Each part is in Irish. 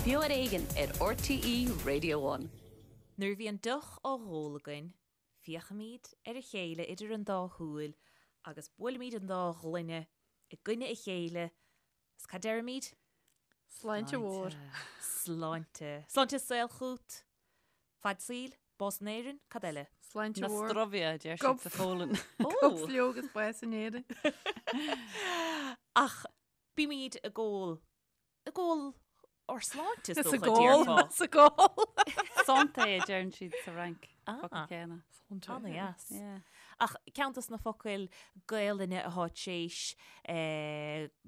Beo ar Éigean ar RTÉ Radio One. Nuair a bhíonn deoch á dh'ól againn, féachaimid ar a chéile idir an dá shúil agus buailimid an dá ghloine i gcoinne a chéile is cad deirimid? Sláinte mhór. Sláinte. Sláinte is saol chút. Fad saoil, bás in Éirinn, cad eile? Sláinte mhór. Na zdrowie, a deir siad sa Pholainn. Go bhflióg is bás in Éirinn. Ach bímid ag ól Ag ól ár sláinte is dócha, déarfá. Sa gcól. Santé a deireann siad sa Fhrainc. Focal céanna. Ana-dheas. Ach ceann dos na focail Gaelainne athá t'éis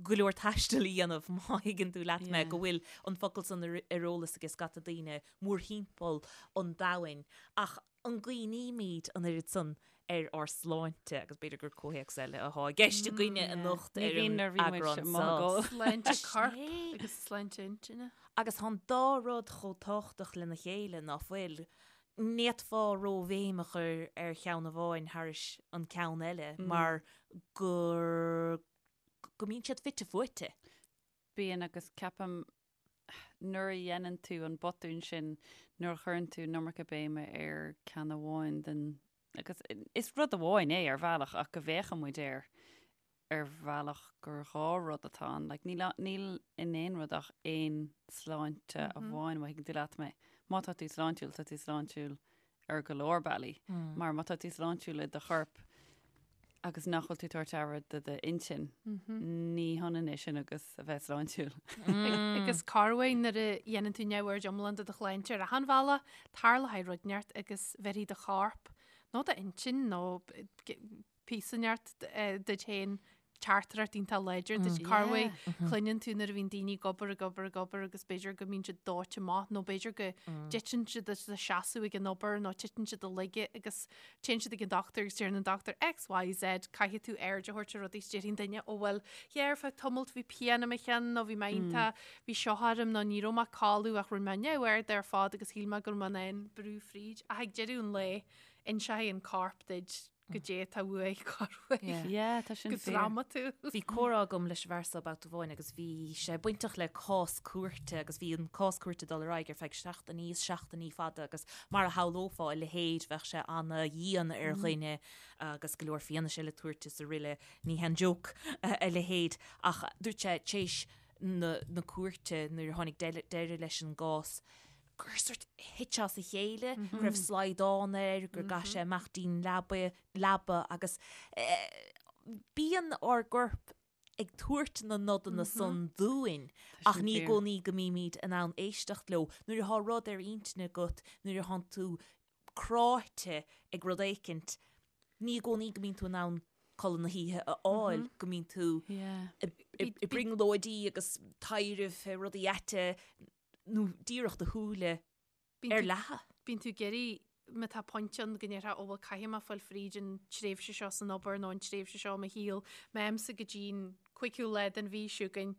go leor taistil a dhéanamh, má thuigeann tú leat mé, go bhfuil an focal san ar eolas ag scata daoine mórthimpeall an domhain. Ach an gcuimhnímid an oiread san ar ár sláinte, agus b'fhéidir gur comhthéacs eile athá i gceist againne anocht ar an eagrán seo. Sláinte coirp agus sláinte intinne. Agus tá an dá rud chomh tábhachtach lena chéile, ná fuil? Ní fhéadfá róbhéim a chur ar cheann amháin thairis an ceann eile mar gur go mbíonn siad fite fuaite. Bíonn agus ceapaim nuair a dhéanann tú an botún sin, nuair a chuireann tú an iomarca béime ar ceann amháin den, agus is rud amháin é ar bhealach ach go bhféachann muid air ar bhealach gur dhá rud atá ann. Like, níl, níl in aon rud ach aon sláinte amháin, má thuigeann tú leat mé. Má tá tú sláintiúil, tá tú sláintiúil ar go leor bealaí. Mar má tá tú sláintiúil i do chorp agus nach bhfuil tú ag tabhairt aire do d'intinn, ní hionann é sin agus a bheith sláintiúil. Agus corruair nuair a dhéanann tú neamhaird iomlán de do shláinte ar achan bhealach, tarlóidh rud inteacht agus bheirfidh do chorp nó d'intinn nó píosa inteacht duit féin teachtaireacht iontach láidir duit. Corruair cluineann tú nuair a bhíonn daoine ag obair, ag obair, ag obair agus b'fhéidir go mbíonn siad dóite amach nó b'fhéidir go dtiteann siad as a seasamh ag an obair nó titeann siad i laige agus téann siad ag an dochtúir agus deireann an dochtúir X, Y, Z, caithfidh tú aird a thabhairt ar rudaí is déarfaidh an duine ó bhuel, yeah, ar feadh tamalt bhí pian i mo cheann nó bhí mé iontach, bhí seo orm nó ní raibh mé ag codladh ach rinne mé neamhaird ar fad agus shíl mé go raibh mé in ann brú fríd ach ag deireadh an lae inseoidh an corp duit goidé atá uaidh corruair. Yeah, tá sin Go fíor. drámatúil. Bhí comhrá agam leis an bhfear seo babhta amháin agus bhí sé bainteach le cás cúirte agus bhí an cás cúirte ag dul ar aghaidh ar feadh seachtainí is seachtainí fada agus mar a shamhlófá a leithéid bheadh sé ana-dhian ar dhuine agus go leor fianaise le tabhairt is araile. Ní haon joke a leithéid ach dúirt sé tar éis na na cúirte nuair a tháinig deireadh leis an gcás gur sort thit sé as a chéile, go raibh slaghdán air, gur gcaith sé amach dtí'n leaba, leaba agus bíonn ár gcorp ag tabhairt na nodanna san dúinn ach ní i gcónaí go mbímid in ann éisteacht leo. Nuair atá rud ar intinn agat, nuair atánn tú cráite ag rud éicint, ní i gcónaí go mbíonn tú in ann codladh na hoíche a fháil, go mbíonn tú i brionglóidí agus taibhreamh fé rudaí aite nó díreach do shúile ar leathadh. Bíonn tú ag iarraidh, má tá pointe ann go ndéarfá, ó bhuel caithfidh mé fáil fríd an tréimhse seo san obair nó an tréimhse seo i mo shaol, má fhaighimse go dtí'n cúigiú lá den mhí seo chugainn,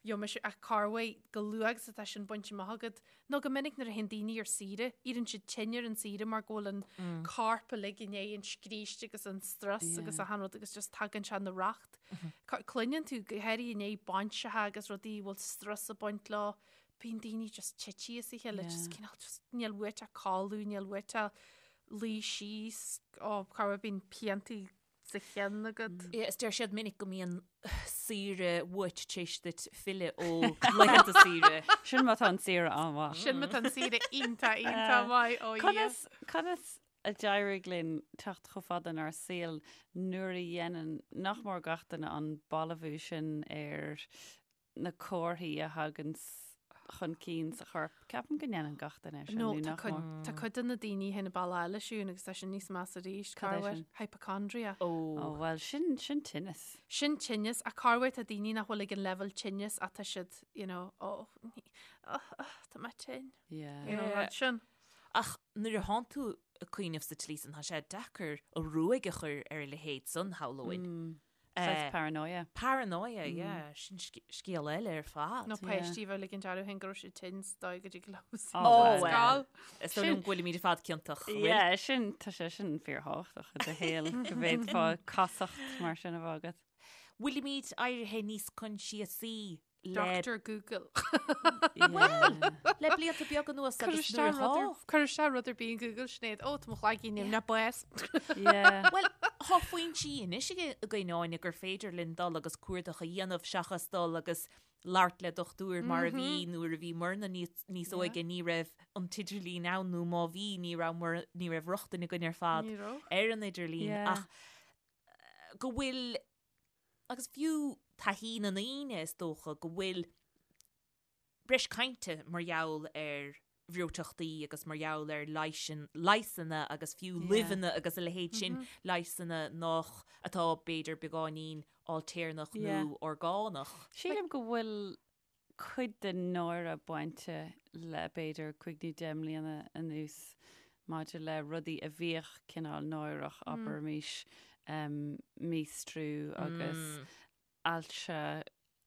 gheobhaidh mise, ach corruair chomh luath agus atá sin bainte amach agat, nó go minic nuair a théann daoine ar saoire, éiríonn siad tinn ar an saoire mar go bhfuil an corp uilig i ndiaidh an scríste agus an strus agus achan rud agus just tagann sé ina racht. Cluineann tú go háirithe i ndiaidh bainseacha agus rudaí a bhfuil strus ag baint leo, bíonn daoine just tite as a chéile, just cineál just níl uait ach codladh, níl uait ach luí síos, ó corruair bíonn piantaí sa cheann agat. Yeah, is deir siad minic go mbíonn saoire uait tar éis duit filleadh ó laethanta saoire. Sin má tá an saoire an-mhaith. Sin má tá an saoire iontach, iontach maith, ó Dhia. Conas, conas a d'éirigh linn teacht chomh fada inár saol nuair a dhéanann nach mór gach duine an balbhú sin ar na comharthaí a thagann chun cinn sa chorp. Ceapaim go ndéanann gach duine é sin, nó nó tá nach cuid, mór. tá cuid de na daoine féin ag baile eile siún agus tá sin níos measa arís. Cad é Corruair sin? hypochondria. Ó, bhuel, sin, sin tinneas. Sin tinneas, ach corruair tá daoine nach bhfuil ag an leibhéal tinnis ach tá siad, you know, ó, ní, oh, oh, tá mé tinn. Yeah. You know, rud sin. Ach nuair a thánn tú ag cuimhneamh sa tslí san, tá sé deacair an ruaig a chur ar a leithéid san, shamhlóinn. Saghas paranoia. Paranoia, yeah. Sin scéal eile ar fad. Nó páistí a bheith ag ligint orthu féin go raibh siad tinn sa dóigh go dtig leo Oh, scoil. Is dóigh liom go bhfuilimid ar fad ciontach. an bhfuil? Yeah, sin, tá sé sin fíorthábhachtach i do shaol go bhféadfá casacht mar sin a bheith agat. Bhfuilimid éirithe níos coinsiasaí le Doctor Google. Bhuel! Le blianta beaga anuas agus nuair atá. Cuir isteach rud ar bith in Google Sinéad, ó tá mo chloigeann nimhneach bás. Bhuel, tá foinsí anois againn Áine gur féidir linn dul agus cuardach a dhéanamh seachas dul agus labhairt le dochtúir mar a bhí nuair a bhí muidne níos óige ní raibh an t-idirlíon ann nó má bhí ní raibh ní raibh rochtain againn ar fad ar an idirlíon ach go bhfuil agus fiú taithí na ndaoine is dócha go bhfuil breis cainte mar gheall ar bhreoiteachtaí agus mar gheall ar leigheasanna agus fiú luibheanna agus a leithéid sin, leigheasanna nach, atá b'fhéidir beagáinín ailtéarnach nó orgánach. Sílim go bhfuil cuid den náire bainte le b'fhéidir cúig nó deich mbliana anuas maidir le rudaí a bhíodh cineál náireach, abraimis, míostrú agus ailse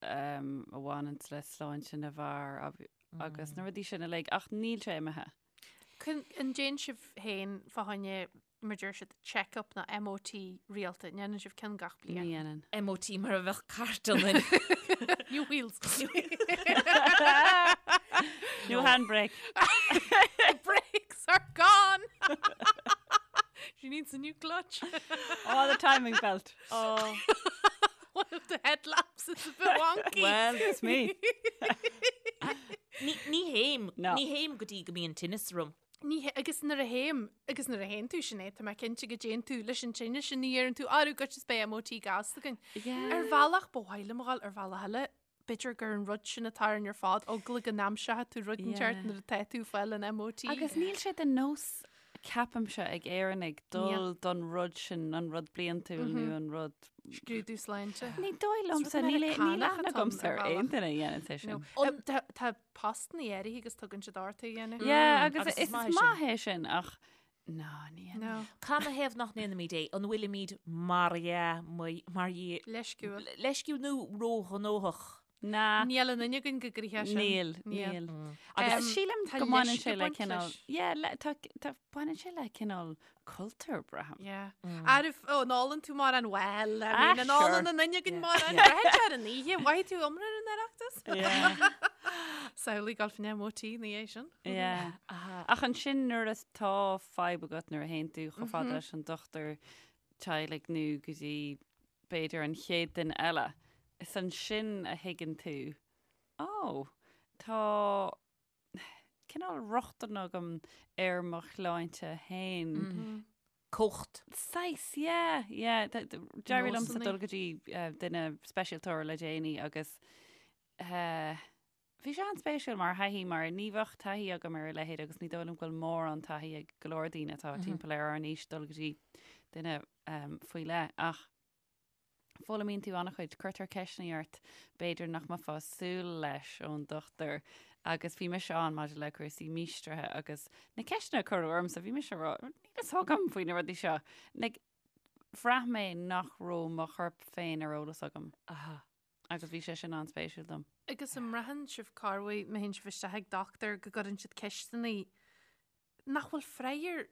a bhaineanns le sláinte na bhfear agus na rudaí sin uilig, ach níl sé imithe. An ndéanann sibh féin fá choinne, mar deir siad, check-up nó MOT rialta? An ndéanann sibh ceann gach bliain? Ní dhéanann. MOT mar a bheadh cairt ionainn. New wheels. New handbrake. Brakes are gone! She needs a new clutch. Oh, the timing belt. Oh. One of the headlamps is a bit wonky. Well, excuse me. Ní ní théim, No. ní théim go dtí go mbíonn tinneas orm. Ní hé- agus nuair a théim, agus nuair a théann tú Sinéad, tá mé cinnte go dtéann tú leis an tinneas sin, ní dheireann tú, arú goitse is beidh MOT gasta againn. Yeah. Ar bhealach ba mhaith liom a dhul, ar bhealach eile, b'fhéidir gur an rud sin atá orainn ar fad, eagla go n-aimseoidh tú rud inteacht Yeah. nuair atá tú ag fáil an MOT. Agus níl sé de nós, ceapaimse, ag Éireannaigh dul don rud sin, an rud bliantúil nó an rud... Scrúdú sláinte. Ní dóigh liomsa, rud níl níl Meiriceánach aithne atá ann agamsa ar ar bhealach. aon duine a dhéanann sé sin. No. Tá tá postanna áirithe agus tugann siad ort é a dhéanamh. Yeah, agus agus is is maith é maith é sin ach ná, ní dhéanann. No. Canathaobh nach ndéanaimid é? An bhfuilimid mar dhea, mar dhea, Leisciúil. leisciúil nó róghnóthach? Ná. Níl aon duine againn go gcroíche sin. Níl, Níl. níl. Agus Agus sílim tá go mbaineann leisce sé le baint cineál, leis. yeah, le, tá, tá, baineann sé le cineál cultúr, braithim. Yeah. Arbh, ó, an ólann tú mórán, well, I Ah, mean, an ólann sure. aon duine againn mórán, braitheann sé ar an oíche, mhaithfidh tú iomrá ar an Oireachtas? Yeah. Samhlaigh dul faoin MOT ina dhiaidh sin. Yeah. Ach ansin nuair atá fadhb agat nuair a théann tú chomh fada leis an dochtúir teaghlaigh nó go dtí b'fhéidir an chéad duine eile, is ansin a thuigeann tú, ó, tá cineál rochtain agam ar mo shláinte féin. Cumhacht. Saghas, yeah, yeah. D'éirigh liomsa Nósanna. dul go dtí eh, duine speisialtóir le déanaí agus eh, Bhí sé an-spéisiúil mar thaithí mar ní bheadh taithí agam ar a leithéid agus ní dóigh liom go bhfuil mórán taithí ag go leor daoine atá timpeall ar ár n-aois dul go dtí duine faoi leith ach foghlaimíonn tú an-chuid, cuirtear ceisteanna ort b'fhéidir nach mbeifeá ag súil leis ón dochtúir agus bhí mise ann maidir le cúrsaí míostraithe agus na ceisteanna a cuireadh ormsa bhí mise ag rá níl fhios agam faoi na rudaí seo. Like, bhraith mé nach raibh mo chorp féin ar eolas agam. Aha. Agus bhí sé sin an-spéisiúil dom. Agus an mbraitheann sibh corruair má théann sibh isteach ag dochtúir go gcuireann siad ceisteanna nach bhfuil freagra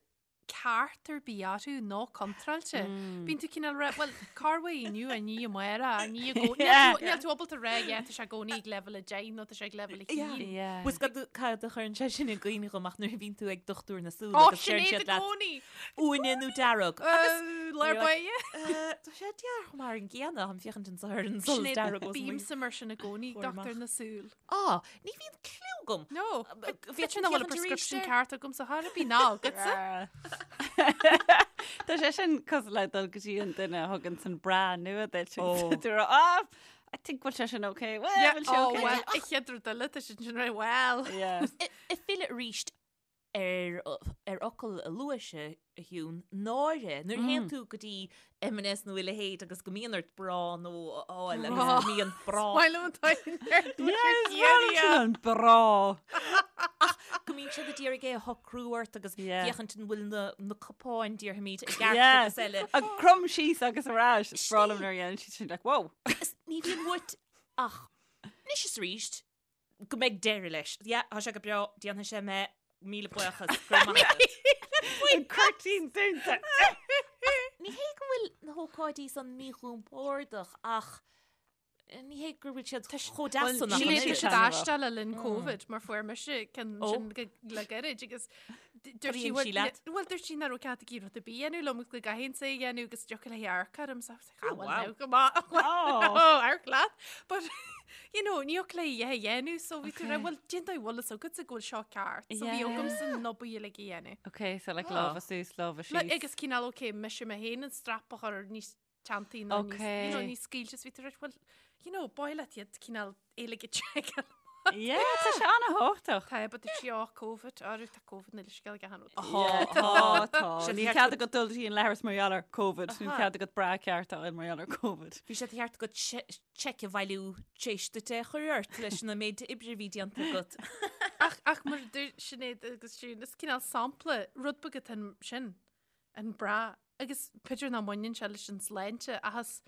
ceart ar bith orthu nó contráilte. Bíonn tú cineál rá, bhuel, corruair inniu, inniu amárach, inniu i gcónaí. Yeah. Níl tú ábalta rá, yeah, tá sé i gcónaí ag leibhéal a 10 nó tá sé ag leibhéal a 1. Yeah. Bhfuil fhios agat cad a chuireann sé sin i gcuimhne dhom ach nuair a bhíonn tú ag dochtúir na súl Ó, agus sin deireann é siad i leat gcónaí! uaine nó dearg. Agus lár báire. Tá sé dearg mar an gcéanna, táim féachaint anseo ar an solas dearg os mo Bímse mar sin i gcónaí, chomhair amach. dochtúir na súl. Á, ní bhíonn cliú agam. No, Bhí sin nach bhfuil an prescription ceart agamsa chor ar bith ná agatsa. Tá sé sin cosúil le dul go dtí an duine a thugann san bra nua duit. Ó. Tú rá, ah, I think bhfuil sé sin okay. Well, Yeah, bhfuil sé oh, okay. well, a chéad rud eile, tá sin sin rá, well. Yeah. Ag filleadh arís ar ar fhocal a luaigh a Shiún, náire. Nuair a théann tú go dtí M&S nó a leithéid agus go mbíonn ort bra nua a fháil agus go mbíonn bra. Maith liom an t-aon An bra. Ach go mbíonn siad ag iarraidh é a shocrú ort agus féachaint an bhfuil na na cupáin déarfaimid i gceart agus eile. Ag crom síos agus ar ais. Is breá liom nuair a dhéanann siad sin like, whoa. Ní bhíonn uait ach anois is arís go mbeidh deireadh leis. Yeah, tá sé go breá, déanfaidh sé mé míle buíochas, go raibh maith agat. An cuirtín dúnta. Ní hé go bhfuil na hócáidí san míchompordach ach. Ní hé gur bhfuil siad chomh deas san ach an siad aisteach le linn Covid mar fuair mise ceann sin le gairid agus dúirt sí bhuel dúirt sí nach raibh cead aici rud ar bith a dhéanamh liom agus go gcaithfinnse é a dhéanamh agus dtiocfadh léi amharc orm so I was like, ah, well, now, go maith. Amharc leat. But you know, ní thiocfadh léi a dhéanamh so bhí tú rá, well, cén dóigh a bhfuil fhios agatsa go bhfuil seo ceart. So bhí agamsa na obair uilig a dhéanamh. Ok, so like lámha suas, lámha síos. Agus cineál ok, mise mé féin an strap a chur níos teanntaí nó níos, you know, níos scaoilte is bhí tú right, well, you know, b'áil leat iad cineál uilig a tseiceáil. Yeah, tá sé an-thábhachtach. Tá, but dúirt sí, oh, Covid, arú tá Covid níl scéal ag achan rud. Tá, tá. Níl cead agat dul dtí an leithreas mar gheall ar Covid, níl cead agat bra ceart a fháil mar gheall ar Covid. Bhí sé de cheart agat seic a bhailiú tar éis duit é a chur ort leis an méid oibre a bhí déanta agat. Ach, ach mar a dúirt Sinéad agus Siún, is cineál sampla, rud beag atá sin, an bra Agus b'fhéidir nach mbaineann sé leis an tsláinte ach is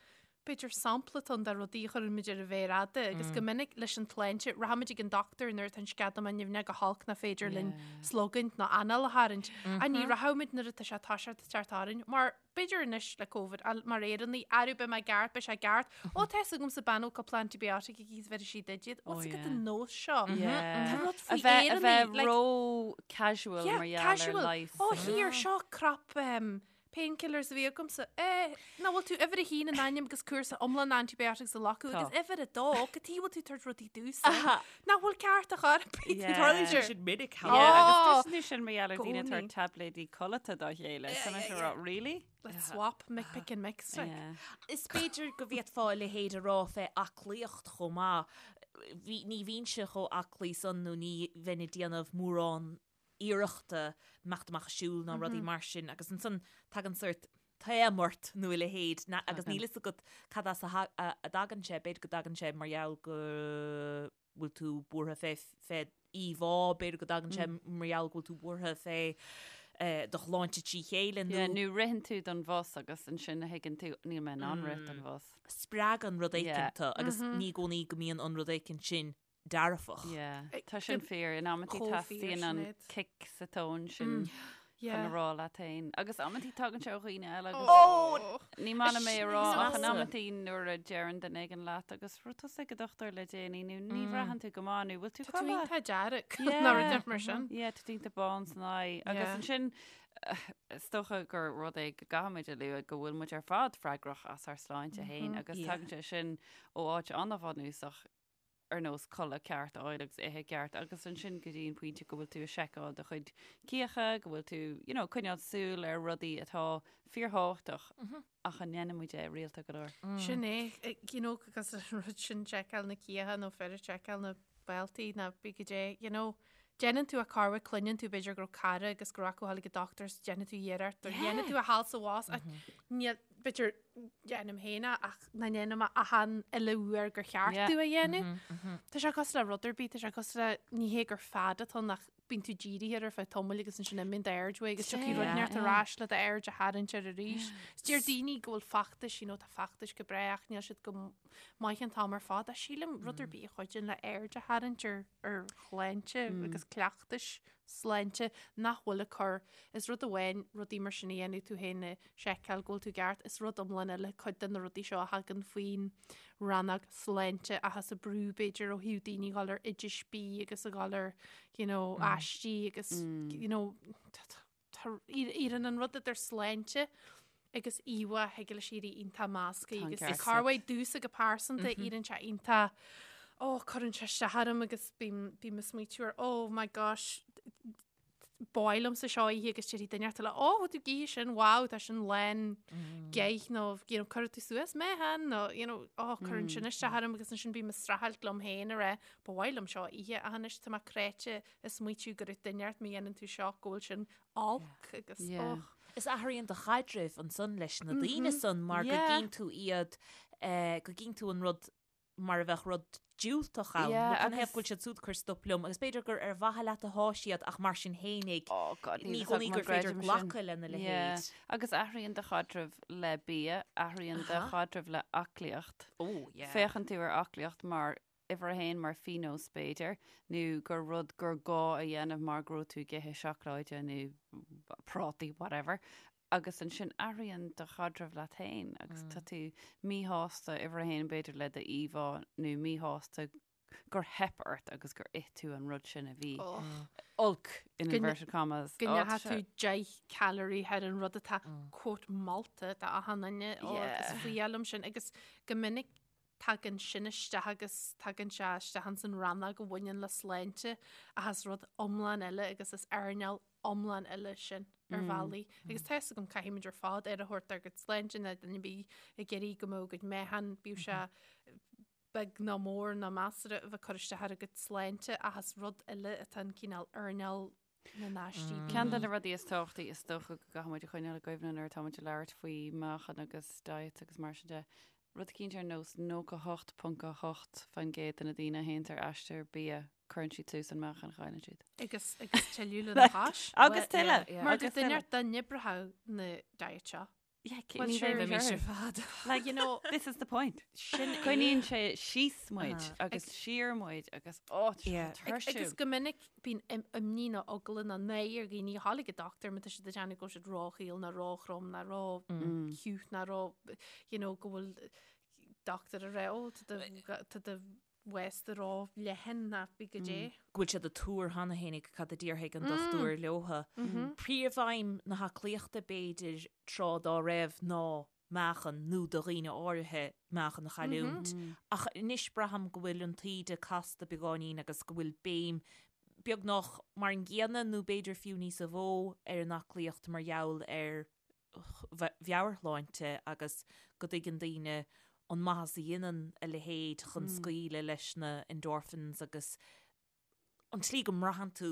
b'fhéidir sampla atá ann de rudaí a chuireann muid ar an mhéar fhada agus go minic leis an tsláinte, rachaimid ag an dochtúir nuair atá an sceadamán nimhneach go holc nach féidir linn slogaint nó anáil a tharraingt. Ach ní rachaimid nuair atá sé ag toiseacht ag teacht orainn mar b'fhéidir anois le Covid, mar Éireannaigh, arú beidh mé ceart, beidh sé ceart. Ó tá fhios agamsa bean a bhfuil cúpla antibiotic aici is bheirfidh sí duit iad. Ó, is agat an nós seo. Tá rud faoi Éireannaigh. A bheith ró casual mar gheall ar leigheas. Ó here, seo crap um, painkillers a bhí agamsa. Eh, nach bhfuil tú uimhir a haon in ainm agus cúrsa iomlán antibiotics a ghlacadh agus uimhir a dó, cad chuige bhfuil tú ag tabhairt rudaí domhsa. Nach bhfuil ceart a chur ar bith. Tarlaíonn sé sin minic. Yeah, agus cloiseann tú sin mar gheall ar daoine ag tabhairt taibléidí codlata dá chéile. Tá mé ag rá, really? Let's swap, make pick and mix. Like. Yeah. Is b'fhéidir go bhféadfá a leithéid a rá fé aclaíocht chomh maith. Bhí, ní bhínnse chomh aclaí san nó ní bheinn ag déanamh mórán iarrachta imeacht amach ag siúl ná rudaí mar sin agus ansan tagann sórt taom ort nó a leithéid na, agus níl fhios agat cad as a tha- a, a dtagann sé, b'fhéidir go dtagann sé mar gheall go bhfuil tú buartha fé fé íomhá, b'fhéidir go dtagann sé mar gheall go bhfuil tú buartha fé do shláinte trí chéile nó. Yeah, nó ritheann tú don bhus agus ansin a thuigeann tú níl mé in ann rith don bhus. Spreagann rud éicint tú agus ní i gcónaí go mbíonn an rud éicint sin dearfach. Yeah, tá sin fíor. In amantaí teastaíonn an cic sa tóin sin. chun a rá leat féin. Agus amantaí tagann sé ó dhaoine eile agus Ó! ní maith liom é a rá ach in amantaí nuair a deireann duine éigin leat agus raibh tusa ag an dochtúir le déanaí nó ní bhraitheann tú go maith nó bhfuil tú Tá tú iontach dearg nó rud inteacht mar sin. Yeah, tá tú iontach bán san aghaidh. Agus ansin is dócha gur rud é go gcaithfimid a lua go bhfuil muid ar fad freagrach as ár sláinte féin agus tagann sé sin ó áit an-bhunúsach ar nós codladh ceart a fháil agus ithe ceart agus ansin go dtí an pointe go bhfuil tú ag seiceáil do chuid cíocha, go bhfuil tú, you know, coinneáil súil ar rudaí atá fíorthábhachtach ach an ndéanann muid é rialta go leor. Sin é, you know, agus an rud sin seiceáil na cíocha nó fir ag seiceáil na bealtaí nó bí go dé, you know, déanann tú a carwa cluineann tú b'fhéidir go raibh cara agus go raibh acu ag an dochtúir is déanann tú iarracht or dhéanann tú a sheal sa bhás ach níl b'fhéidir déanaim féin é ach ná déanaim é achan uile uair gur cheart domh a dhéanamh. Tá sé cosúil le rud ar bith, tá sé cosúil le ní hé gur fad atá ann ach bíonn tú dírithe air ar feadh tamaill agus ansin imíonn d'aird uaidh agus tiocfaidh rud inteacht ar ais le d'aird a tharraingt air arís. Is deir daoine go bhfuil feachtais, you know, tá feachtais go breá ach níl siad go maith an t-am ar fad. Ach sílim rud ar bith a chuidíonn le aird a tharraingt ar ar shláinte agus cleachtais sláinte nach bhfuil ag cur, is rud amháin rudaí mar sin a dhéanamh tú féin a sheiceáil go bhfuil tú ceart, is rud iomlán eile cuid de na rudaí seo a thagann faoin rannóg sláinte ach is ag brú b'fhéidir ó thaobh daoine a dhul ar oidis bídh agus a dhul ar you know, aistí agus you know, Éiríonn an rud idir sláinte agus íomhá thig leis éirí iontach measctha agus is corruair domhsa go pearsanta éiríonn sé iontach ó cuireann sé isteach orm agus bím bím ag smaoitiú ar oh my gosh ba mhaith liomsa seo a ithe agus déarfaidh duine eile ó bhfuil tú ag ithe sin wow tá sin lán geit nó you know cuirfidh tú suas mé han nó you know ó cuireann sin isteach orm agus ansin bím ag streachailt liom féin a rá ba mhaith liom seo a ithe ach anois tá mé cráite ag smaoitiú go raibh duine ort má dhéanann tú seo go bhfuil sin olc agus och. Is athraíonn do chaidreamh ansan leis na daoine san mar go gcíonn tú iad, go gcíonn tú an rud mar a bheadh rud diúltach ann. Nó cad ina thaobh go bhfuil siad siúd ag cur stop liom agus b'fhéidir gur ar mhaithe leat atá siad ach mar sin fhéinig ní i gcónaí gur féidir glacadh lena leithéid. Agus athraíonn do chaidreamh le bia, athraíonn do chaidreamh le aclaíocht. Féachann tú ar aclaíocht mar uimhir a haon mar phionós b'fhéidir, nó gur rud gur gá a dhéanamh mar go raibh tú ag ithe seacláide nó prátaí, whatever. Agus ansin athraíonn do chaidreamh leat féin agus tá tú míshásta uimhir a haon b'fhéidir le do íomhá nó míshásta gur theip ort agus gur ith tú an rud sin a bhí olc in inverted commas. Go ndeacha tú 10 calorie thar an rud atá quote molta do achan duine ó is fuath liom sin agus go minic tagann sin isteach agus tagann sé isteach ins an rannóg a bhaineann le sláinte ach is rud iomlán eile agus is earnáil iomlán eile sin ar bhealaí. Agus tá fhios agam caithfimid ar fad aire a thabhairt dár gcuid sláinte ná duine ar bith ag iarraidh go mbeadh a gcuid meáchan, bíodh sé beag nó mór nó measartha a bheith ag cur isteach ar a gcuid sláinte ach is rud eile atá an cineál earnáil na n-aistí. Ceann de na rudaí is tábhachtaí is dócha go gcaithfidh muid a choinneáil i gcuimhne nuair atá muid ag labhairt faoi meáchan agus diets agus mar sin de, rud eicínt ar nós 98.8% de na daoine a théanns ar aistear bia, cuireann siad suas an meáchan a chailleann siad. Agus agus tuilleadh lena chois. Agus tuilleadh! Mar do duine dá n-oibreodh na diet seo. Yeah, ní bheidh mise ar fad. Like, you know, this is the point. Sin é. Coinníonn sé síos muid agus siar muid agus ó, tá sé tuirsiúil. Agus go minic bíonn imní nó eagla nó náire ar dhaoine a ghabháil ag an dochtúir má tá siad ag déanamh go bhfuil siad róchaol nó róthrom nó róchiúch nó ró, you know, go bhfuil dochtúir ag rá, ó, tá do waist ró-leathan nó bí go dé. Go bhfuil siad ag tuar cheana féinig cad a déarfaidh an dochtúir leotha. Príomhaidhm na haclaíochta b'fhéidir tráth dá raibh ná meáchan nó do dhaoine áirithe meáchan a chailliúint. Ach anois braithim go bhfuil an taoide casta beagáinín agus go bhfuil béim beagnach mar an gcéanna nó b'fhéidir fiú níosa mhó ar an aclaíocht mar gheall ar mheabhairshláinte agus go dtuigeann daoine an maitheas a dhéanann a leithéid chun scaoileadh leis na endorphins agus an tslí go mbraitheann tú,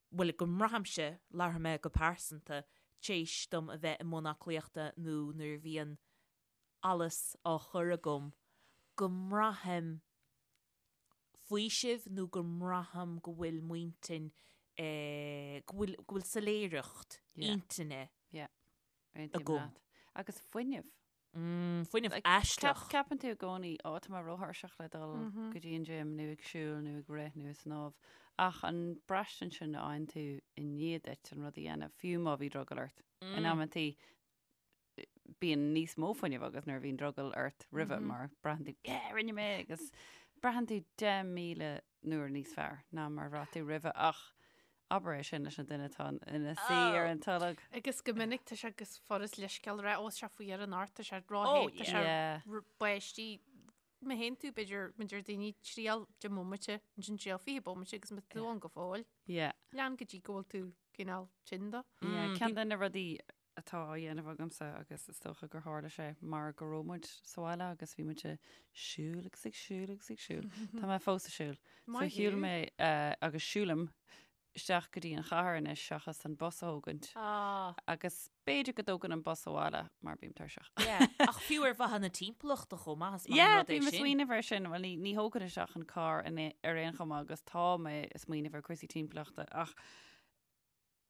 bhuel, go mbraithimse, labharfaidh mé go pearsanta, tar éis dom a bheith i mbun aclaíochta nó nuair a bhíonn allas á chur agam, go mbraithim faoiseamh nó go mbraithim go bhfuil m'intinn, go bhfuil, go bhfuil soiléireacht intinne agam. Agus fuinneamh. Fuinneamh aisteach. Ceapann tú i gcónaí, ó, tá mé róthuirseach le dul go dtí an gym nó ag siúl nó ag rith nó ag snámh. Ach an braistint sin a fhaigheann tú i ndiaidh duit an rud a dhéanamh, fiú má bhí drogall ort. In amantaí bíonn níos mó fuinnimh agat nuair a bhíonn drogall ort roimhe mar braitheann tú, yeah, rinne mé agus braitheann tú 10,000 uair níos fearr ná mar a bhraith tú roimhe ach abair é sin leis an duine atá ina suí ar an tolg. Agus go minic tá sé agus furast leithscéal a rá, ó, tá sé fuar anocht, tá sé róthe, tá sé báistí. Má théann tú, b'fhéidir, mar a deir daoine, triail 10 mbomaite, ansin triail 20 bomaite agus má tá tú ann go fóill, lean go dtí go bhfuil tú cineál tinn dó. Ceann de na rudaí atá á dhéanamh agamsa agus is dócha gur tharla sé mar go raibh muid sa bhaile agus bhí muid ag siúl agus ag siúl agus ag siúl. Tá mé fós ag siúl. So shiúil mé agus siúlaim isteach go dtí an chathair anois seachas an bus a thógaint. Agus b'fhéidir go dtógann an bus abhaile mar bím tuirseach. Ach fiú ar mhaithe na timpeallachta chomh maith is maith an rud é sin. Bím ag smaoineamh air sin, bhuel ní thógann isteach an carr ar aon chuma agus tá mé ag smaoineamh ar cúrsaí timpeallachta ach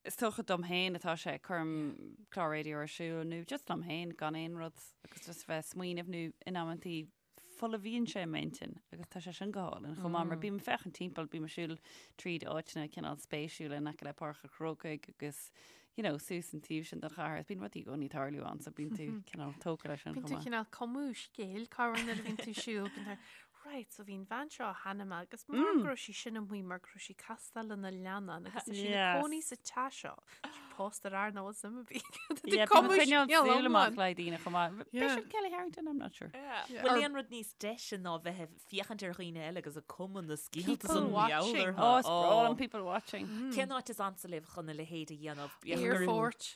Is dócha dom féin atá sé, cuirim clár raidió ar siúl nó just liom féin gan aon rud agus just bheith ag smaoineamh nó in amantaí folmhaíonn sé m'intinn agus tá sé sin go hálainn chomh maith mar bím ag féachaint timpeall, bím ag siúl tríd áiteanna cineál spéisiúla in aice le Páirc an Chrócaigh agus you know, suas an taobh sin den chathair is bíonn rudaí i gcónaí ag tarlú ann so bíonn tú cineál tógtha leis sin Bíonn chomh tú maith. cineál cumadh scéil corruair nuair a bhíonn tú ag siúl, bíonn tú Right, so bhí an bhean seo cheana agus mar go raibh sí sin amuigh mar go raibh sí castáil lena leannán agus tá sí ina cónaí sa teach seo. Tá sí pósta ar fhear nach bhfuil suim ar bith aici. Yeah, bím ag coinneáil súil amach le daoine chomh maith. B'fhéidir Kelly Harrington, I'm not sure. Bhfuil aon rud níos deise ná bheith ag féachaint ar dhaoine eile agus ag cumadh na scéalta People san watching. mheall orthu? Oh, is breá liom people watching. Cén áit is ansa libh chun a leithéid a dhéanamh? Aerfort.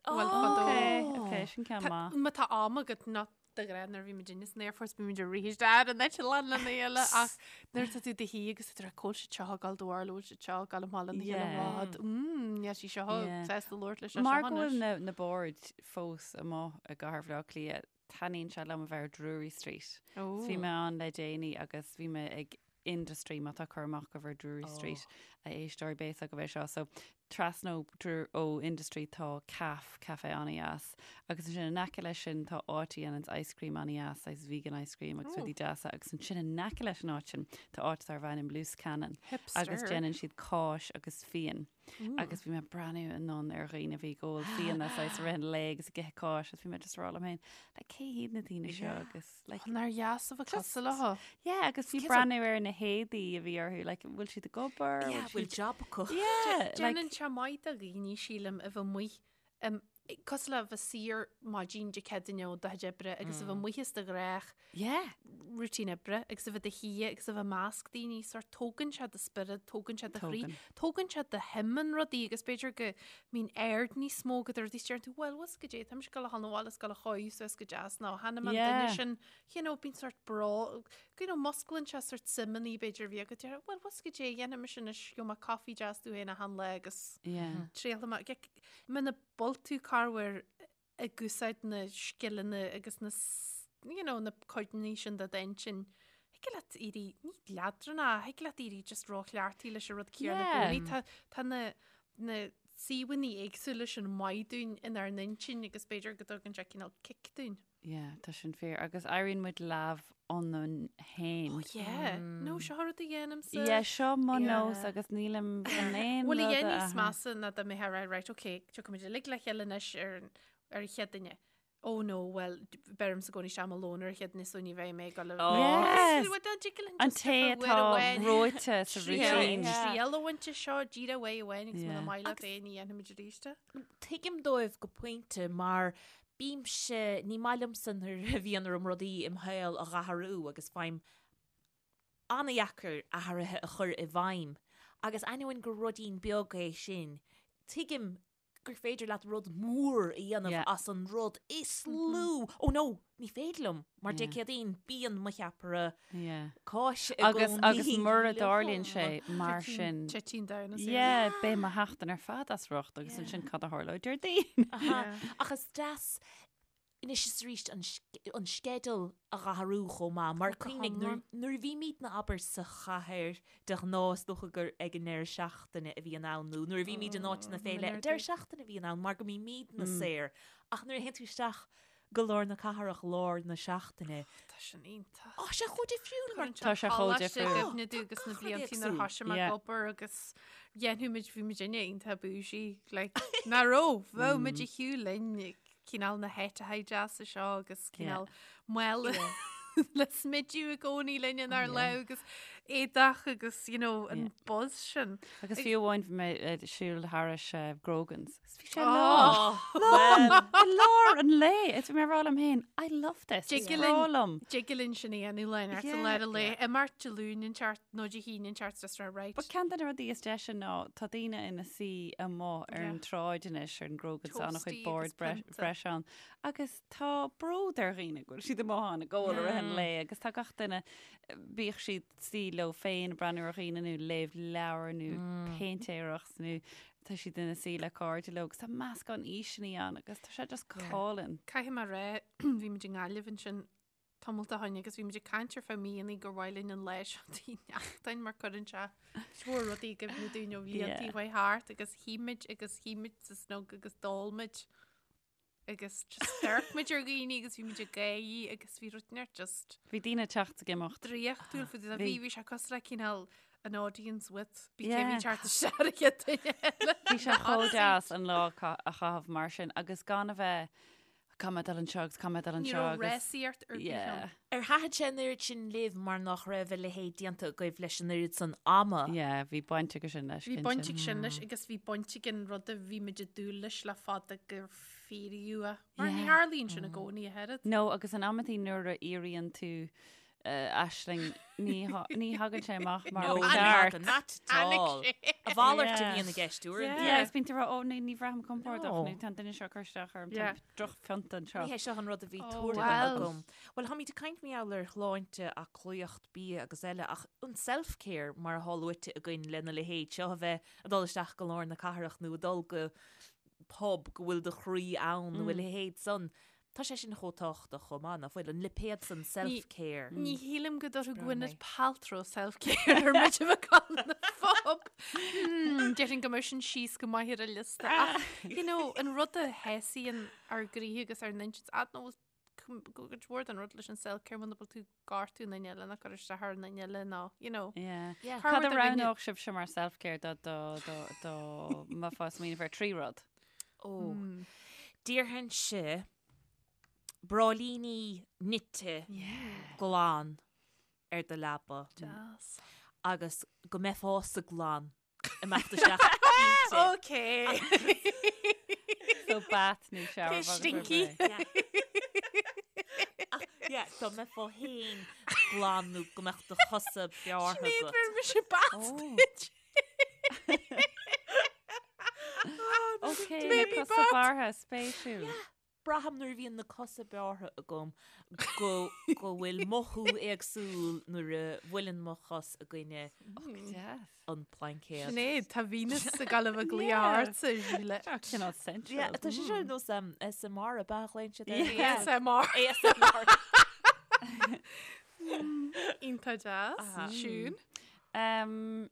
Bhuel, fadó. Ok, ok, sin ceann maith. Má tá am agat not de ghnáth nuair a bhí muid san aerfort bhí muid ag rith isteach ar an eitleán lena chéile ach nuair atá tú i do shuí agus tá tú ag cá bhfuil siad seo ag dul do bharúil bhfuil siad seo ag dul amach lena chéile rud mm níl sí seo sásta labhairt leis seo Mar go bhfuil na na boird fós amuigh i gcathair Bhaile Átha Cliath, taitníonn sé liom a bheith ar Drury Street. Bhí mé ann le déanaí agus bhí mé ag Industry má tá cur amach agaibh ar Drury Street a éisteoirí beidh a fhios agaibh é seo. So trasna ó, ó Industry tá Caf, café an-dheas agus ansin in aice leis sin tá áit a dhéananns ice cream an-dheas, saghas vegan ice cream agus rudaí deasa agus ansin in aice leis an áit sin tá áit darb ainm Loose Cannon agus déanann siad cáis agus fíon. Agus bhí mé ag breathnú anonn ar dhaoine a bhí ag ól fíona saghas i rith an lae agus ag ithe cáis agus bhí mé just ag rá liom féin, like, cé hiad na daoine seo agus like, Nár dheas a bheith cosúil leo. Yeah, agus bhí breathnú ar na héadaí a bhí orthu, like, bhfuil siad ag obair? Yeah, bhfuil job acu? Yeah, like, Déanann sé maith do dhaoine sílim a bheith amuigh Cosúil le bheith saor maidin Dé Céadaoine ó do chuid oibre agus a bheith amuigh as do ghnách Yeah. routine oibre agus a bheith i do shuí agus a bheith i measc daoine sórt tógann sé do spiorad, tógann sé do chroí, Tógann. tógann sé do shuim in rudaí agus b'fhéidir go mbíonn aird níos mó agat ar rudaí is deireann tú well bhfuil goidé táimse ag gabháil a dhul 'na bhaile is gabháil a chodladh suas go deas nó tháinig an Yeah. duine sin you know bíonn sórt bró you know musclaíonn sé sórt suimeanna b'fhéidir a bhí agat deir well bhfuil goidé dhéanfaidh mise anois gheobhaidh mé coffee deas domh féin achan lá agus Yeah. triailfidh mé Muna bhfuil tú corruair ag úsáid na scileanna agus na you know, na codanna sin de d'intinn, thig leat éirí, ní leadránach, thig leat éirí just róchleachtaithe leis an rud céanna i gcónaí. Tá, tá na, na suíomhanna éagsúla sin maith dúinn inár n-intinn agus b'fhéidir go dtugann sé cineál cic dúinn. Yeah, tá sin fíor. Agus éiríonn muid leamh ionainn féin. Oh yeah. No, seo rud a dhéanaimse. Yeah, seo mo Yeah. nós agus nílim chun aon Bhuel, a rud a dhéanamh níos athrú. measa ná dá mbeifeá ag rá, right, ok, tiocfaidh muid uilig le chéile anois ar an ar an Chéadaoine. Oh no, well, beirimse i gcónaí isteach mo lón ar an Chéadaoine so ní bheidh mé ag dul a Oh. Yes. Well, dá dtig linn An just té uair atá amháin reoite sa triail routine. Yeah. triail a bhaint as seo, díreach uair amháin agus muna Yeah. maith leat é ní dhéanfaimid arís é. Tuigim dóibh go pointe mar Bímse, ní maith liomsa nuair a bhíonn orm rudaí im shaol a dh'athrú agus faighim an-dheacair athruithe a chur i bhfeidhm agus ainneoin gur ruidín beag é sin, tuigim gur féidir leat rud mór a dhéanamh Yeah. as an rud is lú. Oh no, ní féidir liom, mar Dé Yeah. Céadaoin bíonn mo cheapaire Yeah. cáise i Agus gcónaí agus mura dtarlaíonn liom. sé mar sin. Titeann down as Yeah, beidh mo sheachtain ar fad as riocht agus ansin cad a tharlóidh Déardaoin. Aha. Ach is deas anois is arís an an sceideal a dh'athrú chomh maith mar Go cuimhnigh nuair hiomlán. nuair a bhímidne abair sa chathair de ghnáth is dócha gur ag an ndeireadh seachtaine a bhíonn ann nó nuair a bhímid in áiteanna Oh, fé leith an deireadh seachtaine a bhíonn ann mar go mbímidne saor ach nuair a théann tú isteach go lár na cathrach lár na seachtaine. Tá sin iontach. Tá sé chomh difriúil mar Tá sé chomh difriúil. I gcuimhne domh agus na Gach rud blianta nuair éagsúil. thoisigh mé ag Yeah. obair agus dhéanfadh muid bhí muid inne iontach bougie like ná raibh bheadh muid ag shiúl linn cineál na háiteacha deasa seo agus cineál mála le smideadh i gcónaí linn inár lámh agus éadach agus you know an buzz sin. Agus fiú amháin bhí mé ag siúl thairis Grogan's. Agus bhí sé lán. Oh, Lán! I lár an lae! Is bhí mé ag rá liom féin, I love this. Dtig Is linn- breá liom. Dtig linn sin a dhéanamh lá inteacht Yeah. an lár an lae. Imeacht Dé Luain inteacht nó Dé hAoine inteacht just rá right. But ceann de na rudaí is deise ná tá daoine ina suí amuigh ar an Yeah. tsráid anois ar an Grogan's tá an-chuid Toasty bord agus pionta. breis ann. Agus tá bród ar dhaoine go bhfuil siad amuigh ann ag ól i rith an lae agus tá gach duine, bíodh siad suí leo féin ag breathnú ar dhaoine nó léamh leabhar nó péintéireacht nó tá siad ina suí le cairde leo agus tá meascán aoiseanna ann agus tá sé just go hálainn. Caithfidh mé a rá, bhí muid i nGaillimh ansin tamalt ó shin agus bhí muid ag caint ar feadh míonna gur mhaith linn an lá seo Tigh Neachtain mar cuireann sé mórán rudaí i gcuimhne dúinn ó bhlianta Yeah. a chuaigh thart agus shuigh muid agus shuigh muid sa snug agus d'ól muid. agus just d'amharc muid ar dhaoine agus bhí muid ag gáirí agus bhí rud inteacht just Bhí daoine ag teacht ag imeacht. draíochtúil faoi Bhí. bhí bhí sé cosúil le cineál an audience with bhí Yeah. cé bhí teacht isteach ar an chéad duine eile. Bhí sé chomh deas an lá a a chaitheamh mar sin agus gan a bheith caithfidh mé dul anseo agus caithfidh mé dul Ní anseo raibh agus rásaíocht ar bith yeah. ann. Ar thaitin sé an oiread sin libh mar nach raibh a leithéid déanta agaibh leis an oiread san ama? Yeah, bhí baint aige sin leis. Bhí cinnte. baint ag sin leis agus bhí baint ag an rud a bhí muid ag dúil leis le fada gur fíoraíodh é. Mar ní Yeah. tharlaíonn sin i gcónaí a oiread. No, agus in amantaí nuair a fhíoraíonn tú uh, aisling ní tha- ní thagann sé amach mar No, ba ní cheart. thagann, not at Tháinig all. sé. A mhalairt a Yeah. bhíonn i gceist uaireanta. Yeah, is bíonn tú ag rá, ó, ní ní bhraithim compordach No. nó tá an duine seo ag cur isteach orm, tá Yeah. drochphionta anseo. Ní hé seo an rud a bhí Oh, tuartha well. agam. Well, táimid ag caint mar gheall ar shláinte, aclaíocht, bia agus eile, ach an self-care mar atá luaite againn lena leithéid seo a bheith ag dul isteach go lár na cathrach nó ag dul go pub go bhfuil do chroí ann nó a leithéid san. Tá sé sin chomh tábhachtach chomh maith, nach bhfuil? An lipéad san self-care. Ní shílim go dtabharfadh Breá Gwyneth mé. Paltrow self-care ar muid a bheith ag dul na phub. Hmm, Déarfainn go mbeadh sin síos go maith ar a liosta. Ach, you know, an rud a shásaíonn ár gcroíthe agus ár n-intinn, I don't know, cuid mhór den rud leis an self-care muna bhfuil tú ag gortú an duine eile nó ag cur isteach ar an duine eile nó, you know. Yeah. Yeah. Cad a roghnódh sibhse mar self-care dá dá dá dá mbeifeá ag smaoineamh ar thrí rud? Ó. Déarfainnse bráillíní nite glan ar do leaba. Deas. Agus go mbeifeása glan. Imeacht isteach inti. Ok. So bath nó shower. Cé stinky. Ach, yeah, dá mbeifeá féin glan nó go mbeadh do chosa bearrtha Sinéad agat. bhfuair mise bath duit. Ok, na Maybe cosa bath. bearrtha, spéisiúil. Braithim nuair a bhíonn na cosa bearrtha agam go go bhfuil mothú éagsúil nuair a bhuaileann mo chos i gcoinne an plaincéad. Sinéad, tá Venus ag gabháil a bheith ag glaoch ortsa, Síle. Seo cineál sensual. Yeah, tá sé seo ar nós SMR ab ea a ghlaonn siad air? Yeah. ASMR. ASMR. Iontach deas. Siún. Um,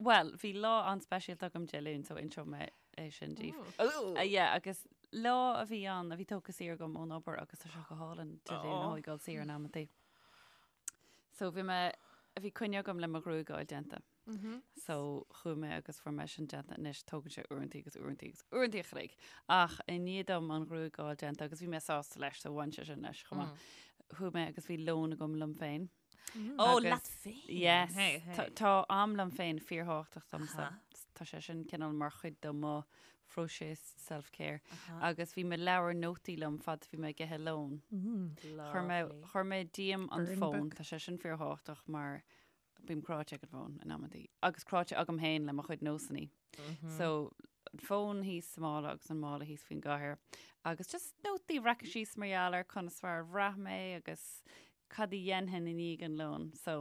Bhuel, bhí lá an-speisialta agam Dé Luain, so inseoidh mé é sin daoibh. Uh, yeah, agus lá a bhí ann, a bhí tógtha saor agam ón obair agus tá sé go hálainn Dé Luain a thógáil saor in amantaí. So bhí mé, bhí coinne agam le mo ghruaig a fháil déanta. So chuaigh mé agus fuair mé sin déanta anois, tógann sé uaireantaí agus uaireantaí agus uaireantaí a chloig. Ach i ndiaidh dom an ghruaig a fháil déanta agus bhí mé sásta leis, so bhain sé sin leis chomh maith. Chuaigh mé agus bhí lón agam liom féin. Ó, Agus- leat féin. Yes. Hey, hey. Tá- Tá am liom féin fíorthábhachtach domsa. Aha. Tá sé sin cineál mar chuid de mo phróiseas self-care. Agus bhí mo leabhar nótaí liom fad bhí mé ag ithe lón. Chuir mé chuir mé díom an Burn fón, book. tá sé sin fíorthábhachtach mar bím cráite ag an bhfón in amantaí. Agus cráite agam féin le mo chuid nósanna. So an fón thíos sa mála agus an mála thíos faoin gcathaoir. Agus just nótaí a bhreacadh síos mar gheall ar conas mar a bhraith mé agus cad a dhéanfainn i ndiaidh an lóin. So,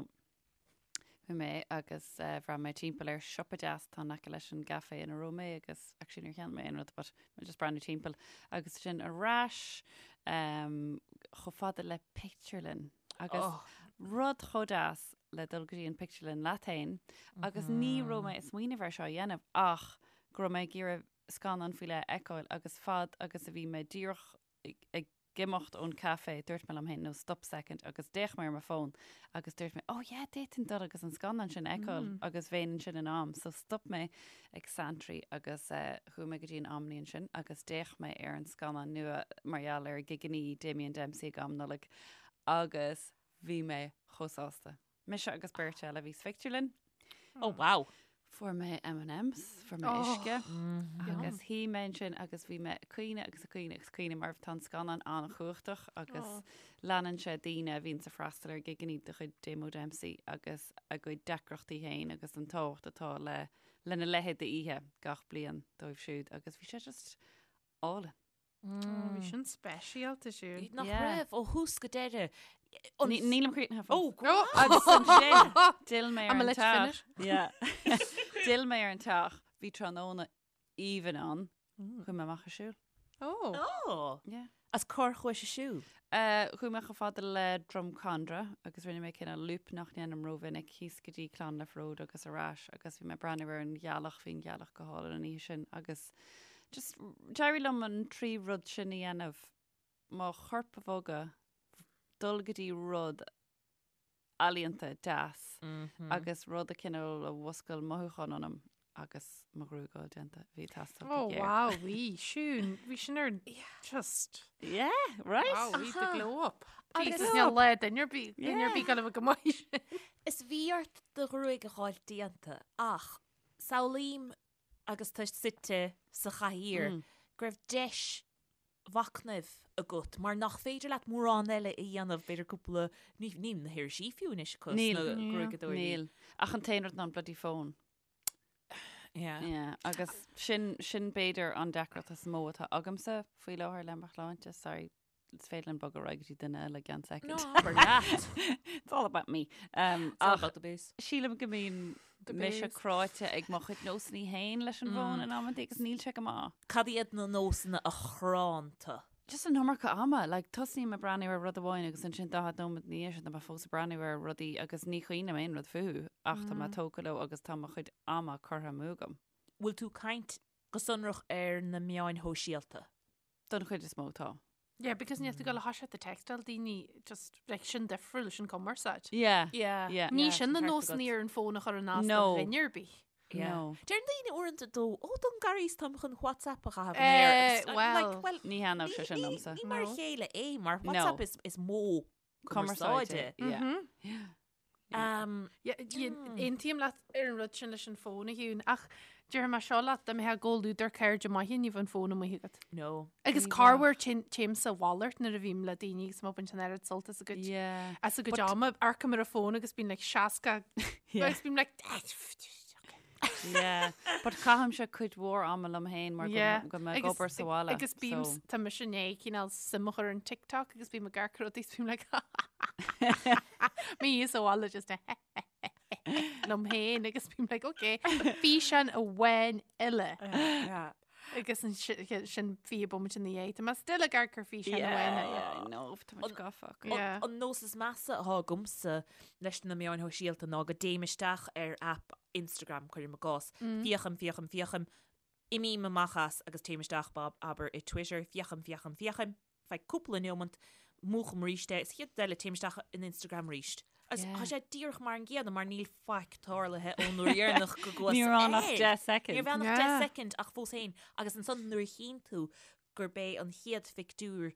bhí mé agus eh, bhreathnaigh mé timpeall ar siopa deas atá in aice leis an gcafé ina raibh mé agus actually níor cheannaigh mé aon rud but mé just breathnú timpeall agus sin ar ais um, chomh fada le pictiúrlann agus oh. rud chomh deas le dul go dtí an pictiúrlann leat féin agus ní raibh mé ag smaoineamh ar seo a dhéanamh ach go raibh mé ag iarraidh scannán faoi leith a fheiceáil agus fad agus a bhí mé díreach ag, ag imeacht ón café, dúirt mé liom féin, no, stop second, agus d'fhéach mé ar mo fón agus dúirt mé, oh yeah, d'fhéadfainn dul agus an scannán sin a fheiceáil agus bheinn ansin in am. So stop mé ag Santry agus eh, chuaigh mé go dtí an Omni ansin agus d'fhéach mé ar an scannán nua mar gheall ar gigeannaí Damien Dempsey ag am Nollag agus bhí mé chomh sásta. Mise agus beirt eile a bhí sa phictiúrlann. Oh, wow. Fuair mé M&M's, fuair mé Oh. uisce agus shuigh mé ansin agus bhí mé ag caoineadh agus ag caoineadh agus caoineadh mar tá an scannán an-chumhachtach agus Oh. leanann sé daoine a bhíonn ag freastal ar gigeannaí de chuid Damo Dempsey agus a gcuid deacrachtaí féin agus an tábhacht atá le lena leithéid d'oíche gach bliain dóibh siúd agus bhí sé just álainn. Bhí sin speisialta siúd. Nach Yeah. raibh ó thús go deireadh. Nílim críochnaithe fós. Ó, go Agus ansin, d'fhill mé ar I'm an a let you teach. finish. Yeah. D'fhill mé ar an teach, bhí tráthnóna aoibhinn ann. Chuaigh mé amach ag siúl. Ó. Ó. Yeah. As cár chuais ag siúl. Uh, chuaigh mé chomh fada le Drumcondra agus rinne mé cineál loop nach ndéanaim rómhinic thíos go dtí Clonliffe Road agus ar ais agus bhí mé ag breathnú ar an ghealach, bhí an ghealach go hálainn an oíche sin agus just d'éirigh liom an trí rud sin a dhéanamh, mo chorp a bhogadh, dul go dtí rud ealaíonta deas agus rud a cineál a mhuscail mothúchán ionam agus mo ghruaig a fháil déanta, bhí ag teastáil Oh go géar. wow, bhí Siún, bhí sin ar just Yeah, right? wow, bhí the glow up. Agus- Jesus, níl le duine ar bith, duine ar bith gan a bheith go maith sin. Is bhí ort do ghruaig a fháil déanta ach samhlaím agus tú suite sa chathaoir go raibh deis mhachnaimh agat mar nach féidir leat mórán eile a dhéanamh, b'fhéidir cúpla, ní, níl na hirisí fiú anois acu Níl. sna gruaigeadóirí. Níl. Ach an t-aon rud ná an bloody phone. Yeah. Yeah, agus sin, sin b'fhéidir an deacracht is mó atá agamsa faoi láthair le mo shláinte. Sorry, is féidir linn bogadh ar aghaidh go dtí duine eile i gceann No, soicind. abair leat. It's all about me. Um, It's all ach about the base. sílim go mbíonn The mise base. cráite ag mo chuid nósanna féin leis an bhfón in amantaí agus níl sé go maith. Cad iad na nósanna a chránn tú? Just an iomarca ama, like, tosaím ag breathnú ar rud amháin agus ansin 40 nóiméad ina dhiaidh sin tá mé fós ag breathnú ar rudaí agus ní chuimhním aon rud fúthu ach tá mé tógtha leo agus tá mo chuid ama curtha amú agam. Bhfuil tú ag caint go sonrach ar na meáin shóisialta? Don chuid is mó tá. Yeah, because níl tú ag gabháil a thoiseacht ag textáil daoine just like sin difriúil sin cumarsáid. Yeah. Yeah. Yeah. Ní Yeah, sin na ceart nósanna agat. ar an fón a chur in as No. do dhuine ar bith. Yeah. No. Deireann daoine uaireanta dó, ó don garís táim chun WhatsApp a chaitheamh Eh, in aer. Agus I'm well, like, well, Ní thaitneodh sé ní- sin ní- liomsa. Ní mar a No. chéile é, mar No. WhatsApp is, is modh Cumarsáide. cumarsáide. Yeah. Mhm. Yeah. Yeah, Aontaím leat ar an rud sin leis an fón a Shiún, ach déarfaidh mé seo leat, dá mbeifeá i gcomhluadar cairde maithe ní bheadh an fón amuigh agat. No. Agus corruair téim sa mhalairt nuair a bhím le daoine agus má bhaint an oiread sult as a gcuid Yeah. as a gcuid ama, amharcaim ar an fón agus bím like 60 Yeah. agus bím like Yeah. But caithimse cuid mhór ama liom féin mar go- Yeah. go mbeidh obair sa bhaile. Agus bím so- tá mise i ndiaidh cineál suim a chur in TikTok agus bím ag amharc ar rudaí is bím like mé sa bhaile just liom féin agus bím like okay físeán amháin eile Yeah. agus an sin 20 bomaite ina dhiaidh. Tá mé still ag amharc ar físeán amháin eile. Yeah, I know, tá muid gafa acu. Yeah. An nós is measa atá agamsa leis na meáin shóisialta ná go dtéim isteach ar app Instagram, cuirim i gcás, féachaim, féachaim, féachaim, imím amach as agus téim isteach bob, abair i Twitter, féachaim, féachaim, féachaim, feadh cúpla neomant, múchaim arís é, is chéad eile téim isteach in Instagram arís. Agus Yeah. tá sé díreach mar an gcéanna mar níl faic tarlaithe ón uair dheireanach go gcuas Ní raibh ann ach air. 10 second. Ní raibh ann ach Yeah. 10 second ach fós féin agus ansan nuair a chíonn tú gurb é an chéad phictiúr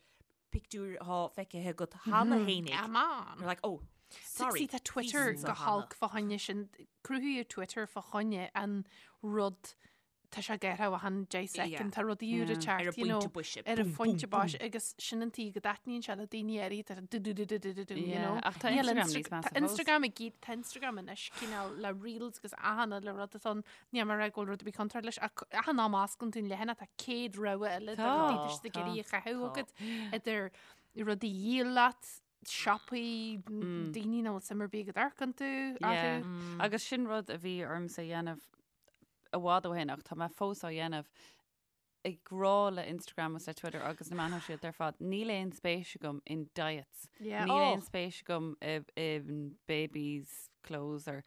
pictiúr atá feicthe agat cheana féinig. Come on. You're like, oh, sorry. See, tá Twitter bhí go san holc fá choinne sin cruthaíodh Twitter fá choinne an rud tá sé gearrtha achan 10 second, tá rudaí úra Yeah. teacht, Ar an you know, bpointe boise. ar an Boom, phointe boom, boise agus sin an tuige go dtaitníonn sé le daoine áirithe, tá du du du du du du du, you Yeah, know. ach tá Níl Instagram Insta- níos measa tá fós. Instagram ag iad- tá Instagram anois cineál le reels agus achan uile rud atá ann. Níl mé ag rá go bhfuil rud ar bith contráilte leis, ach achan am a osclaíonn tú an leathanach tá 100 rogha eile de Tá, rudaí tá siad ag tá, iarraidh a chaitheamh tá. agat idir rudaí a dhíol leat, siopaí, daoine nach bhfuil suim ar bith agat amharc iontu, Yeah. orthu. Agus sin rud a bhí ormsa a dhéanamh i bhfad ó shin ach tá mé fós á dhéanamh ag rá le Instagram agus le Twitter agus na meáin shóisialta ar fad, níl aon spéis agam in diets. Yeah. Níl Oh. aon spéis agam i, in babies clothes or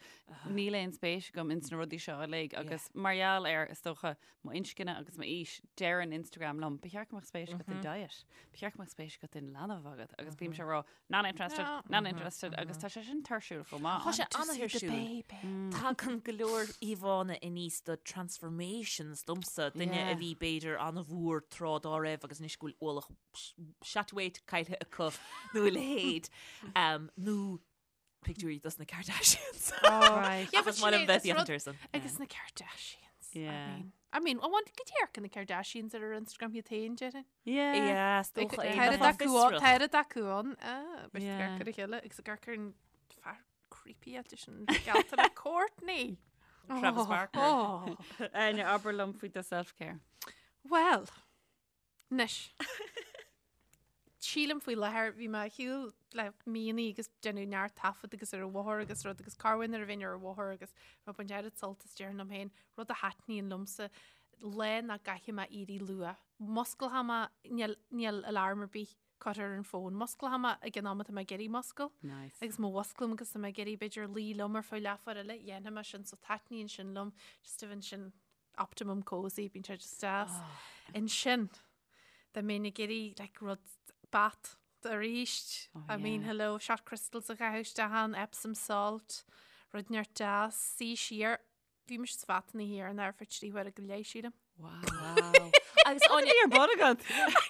níl aon spéis agam ins na rudaí seo uilig agus mar gheall ar is dócha mo inscne agus m'aois deireann Instagram liom, ba cheart go mbeadh spéis agat in diet, ba cheart go mbeadh spéis agat in leanbh agat agus bímse ag rá not interested, No. not interested agus tá sé sin tuirsiúil chomh maith. Tá sé To see the an-tuirsiúil. baby. Tagann go leor íomhánna aníos de transformations domsa, duine Yeah. a bhí b'fhéidir an-mhór tráth dá raibh agus anois go bhfuil ualach seat weight caillte acu nó a leithéid. Um, nó pictiúirí dos na Kardashians. Right. Yeah, Ach but is maith liom Sinéad, bheith is rud- féachaint air Agus na Kardashians. I Yeah. mean, I mean, I want go amharcann na Kardashians ar ar Instagram iad féin, déarfainn. Yeah. Yeah, is dócha é. Tá Tá fiosrach. Tá acu ann, ah, beirt Yeah. amharc ar a chéile agus amharc ar an fear creepy eile sin geallta le Kourtney. Travis Oh, Barker. Oh. Áine, abair liom faoi do self-care. Well, anois. Sílim faoi láthair bhí mé ar shiúl le míonna agus déanamh neart taifead agus ar an bhóthar agus rud agus corruair nuair a bhínn ar an bhóthar agus mé ag baint oiread sult as déarfainn liom féin, rud a thaitníonn liomsa, lá nach gcaithfidh mé éirí luath. Musclóidh mé, níl, níl alarm ar bith curtha ar an bhfón, musclóidh mé ag an am atá mé ag iarraidh muscail. Nice. Agus má mhusclaím agus tá mé ag iarraidh b'fhéidir luí liom ar feadh leathuair eile, dhéanfaidh mé sin, so taitníonn sin liom, just a bhíonn sin optimum cozy, bíonn sé just deas. Ansin, dá mbeinn ag iarraidh like rud bath arís, Oh, I mean yeah. hello, shot crystals a chaitheamh isteach ann, Epsom salt, rud inteacht deas, suí siar, bhí mise sa bhath an oíche dheireanach ar feadh 3 huaire go leith, sílim. Wow. Wow. Agus Áine, Ar bun agat.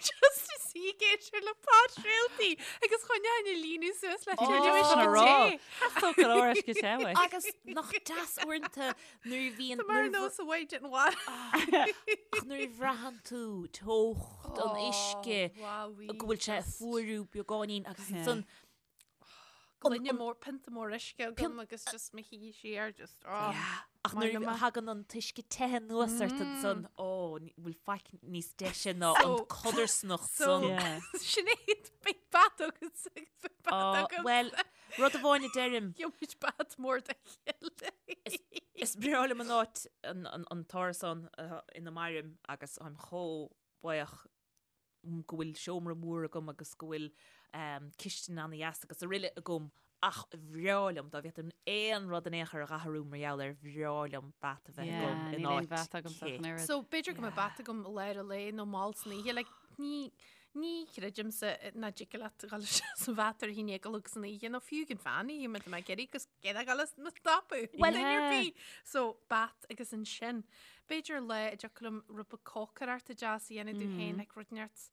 Just ag suí ag éisteacht le podchraoltaí agus choinneoinn a líonadh suas le Oh, tuilleadh chun a uisce rá. te. Theastódh go leor uisce te uait. Agus nach deas uaireanta nuair a bhíonn Tá mar nuair a nós a bhaid an bhaile. ach nuair a bhraitheann tú teocht an uisce go bhfuil sé ag fuarú beagáinín agus Yeah. ansan Gloine mór, pionta mór uisce agam agus just mo shuí siar just oh. Yeah. Ach Maith nuair liom a é. thagann an t-uisce te anuas ort ansan, ó, ní- bhfuil faic níos deise ná So- an codarsnacht so- san. Yeah. Sinéad, beidh bath agat agus beidh bath Oh, agam. Well, rud amháin a deirim, Gheobhaimid bath mór dá chéile. is breá liom an áit an, an, an t-árasán uh, ina mairim agus táim chomh buíoch go bhfuil seomra mór agam agus go bhfuil um, cistin an-dheas agus araile agam ach bhreá liom dá bhféadfainn aon rud in aon chor a dh'athrú mar gheall air bhreá liom bath a bheith Yeah, agam in níl aon áit bhath agam sa cith. oiread. So b'fhéidir go mbeidh bath agam i lár an lae nó mall san oíche, like, ní, Ní chreidimse nach dtig leat dul isteach sa bhat ar a haon déag a chlog san oíche nó fiú ag an mheán oíche má tá mé ag iarraidh agus céad a dhul as mo stopadh. Well, duine ar yeah. bith. So, bat agus ansin, b'fhéidir lá a dtiocfadh liom rud beag cócaireachta deas a dhéanamh domh féin, like rud inteacht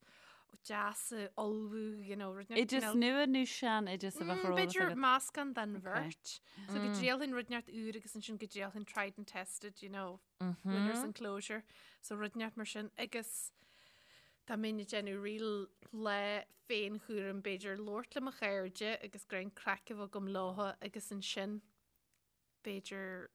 deas a ullmhú, you know, rud inteacht Oideas cineál- nua nó sean oideas a bheadh ar eolas B'fhéidir agat? meascán den Okay. bheirt. So go dtriailfinn rud inteacht úr agus ansin go dtriailfinn tried and tested, you know, winner's enclosure. So rud inteacht mar sin agus dá mbeinn ag déanamh real lá féinchúraim b'fhéidir labhairt le mo chairde agus greim craic a bheith agam leo agus ansin b'fhéidir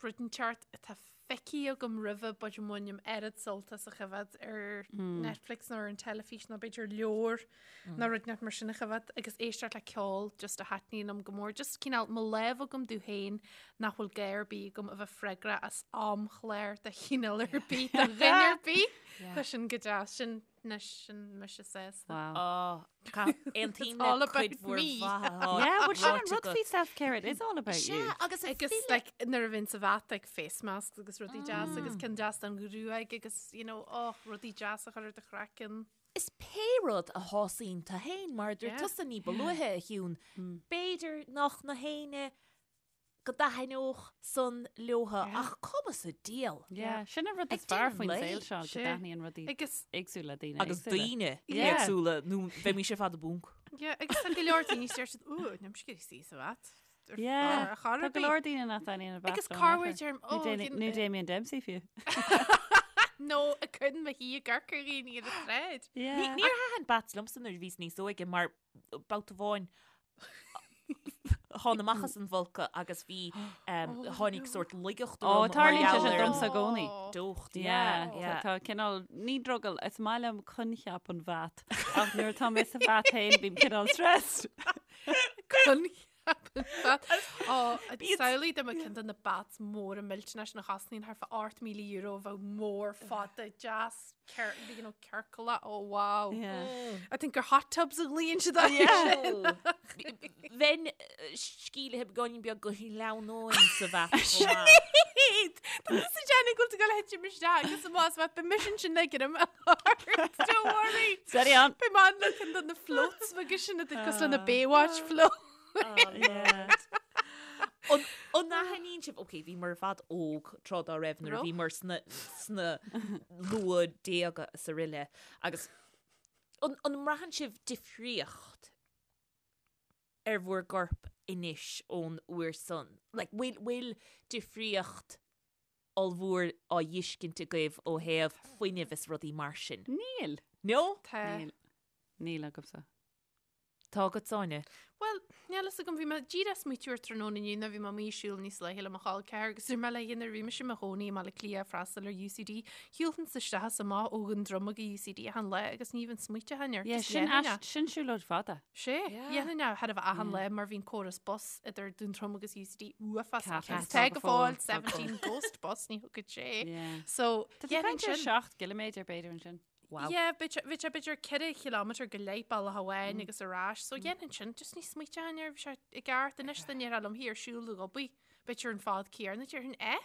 rud inteacht atá feicthe agam roimhe but a mbainim oiread sult as a choimhéad ar Netflix nó ar an teilifís nó b'fhéidir leabhar nó rud inteacht mar sin a choimhéad agus éisteacht le ceol just a thaitníonn liom go mór. Just cineál mo lá a bheith agam domh féin nach bhfuil gá ar bith agam a bheith freagrach as amchlár de chineál ar bith do dhuine ar bith. Tá sin go deas sin anois sin mise sásta. Wow. Oh, Aontaím all le about cuid mhór me. mhaith. Yeah, well sin an rud faoi self-care, it is all about you. Sea, agus Agus like, nuair a bhíonn sa bhat like, face masks agus rudaí deas agus ceann deas don ghruaig agus you know, oh, rudaí deas a chur ar do chraiceann. Is pé rud a shásaíonn tú féin mar a dúirt Yeah. tusa ní ba luaithe a Shiún, b'fhéidir nach na héinne go dtaitneodh san leotha ach cuma sa diabhal. Yeah, sin an rud Ag is fearr déanamh faoin lae. saol seo, go Sea. dtaitníonn rudaí Agus éagsúla le daoine Agus éagsúla. daoine Yeah. éagsúla nó bheimis ar fad i bponc. yeah, agus tá go leor daoine deir siad "Ooh, níl mise ag iarraidh suí sa bhat. Ar- Yeah, ar chor Tá ar go bith." leor daoine nach dtaitníonn an bat Agus leo cá in bhfuil aon deir- chor. Nó oh, Dami- you- Nó Damien Dempsey fiú. Nó a cuireann mo thí i gcorca dhaoine ar an tsráid. Yeah. Níor thaitin bats liomsa nuair a bhíos níos óige mar babhta amháin thána amach as an bhfolcadh agus bhí tháinig sórt laigeacht Ó, orm mar tarlaíonn sé gheall sin ar an domsa i gcónaí. deocht. Yeah, Yeah, tá cineál ní drogall, is maith liom coincheap an bhat ach nuair atá mé sa bhat féin bím cineál stressed. Coincheap an bhat. Ó, samhlaigh dá mbeadh ceann de na bats móra millteanna sin a chosnaíonn thart fá €8,000 a bheadh mór fada deas you know, ciorclach. Oh, wow. Yeah. I think gur hot tubs a ghlaonn siad air sin. Bheinn sceimhlithe beagáinín beag go sleamhnóinn sa bhat chomh maith. Sinéad! Tá tusa ag déanamh go bhfuil tú ag dul a thitim isteach agus amach as bhat, beidh mise ansin ag greim ort. Don't worry. Steady on. Beidh mé ann le ceann de na floats beaga sin atá cosúil le na Baywatch float. Yeah. An an aithníonn sibh, ok, bhíomar ar fad óg tráth dá raibh nuair a Raibh. bhíomar sna, sna luathdhéaga is araile agus an, an mbraitheann sibh difríocht ar bhur gcorp anois ón uair san? Like, bhfuil, bhfuil difríocht ollmhór á fheiscint agaibh ó thaobh fuinnimh is rudaí mar sin? Níl. No? Tá. Níl. Níl agamsa. Tá agat, Áine? Bhuel, níl fhios agam, bhí mé díreach ag smaoitiú ar tráthnóna inniu nuair a bhí mé amuigh ag siúl níos luaithe le mo chol ceathar agus dúirt mé léi nuair a bhí mise i mo chónaí i mBaile Átha Cliath ag freastal ar UCD, shiúlfainnse isteach is amach ó Dhún Droma go UCD achan lá agus ní bheinn smaoiteach air. Yeah, Just sin dhéanfainn é. ais- sin siúlóid fada. Sé, Yeah. dhéanfainn é thar a bheith achan lá mar bhí an córas bus idir Dún Droma agus UCD uafásach. Ceapaim. Agus tá go fóill Tá go 17 Ghost Bus ní thugann sé. Yeah. So, Tá tú dhéanfainn caint ar sin. 7 gciliméadar b'fhéidir ansin. Wow. Yeah, bhí sé b'fhéidir 4 chileámeter go leith bealach amháin agus ar ais, so dhéanfainn sin, just ní smaoiteoinn air, bhí sé i gceart anois dá ndéarfá liom thiar siúl go Obaí, b'fhéidir an fad céanna, déarfainn eh?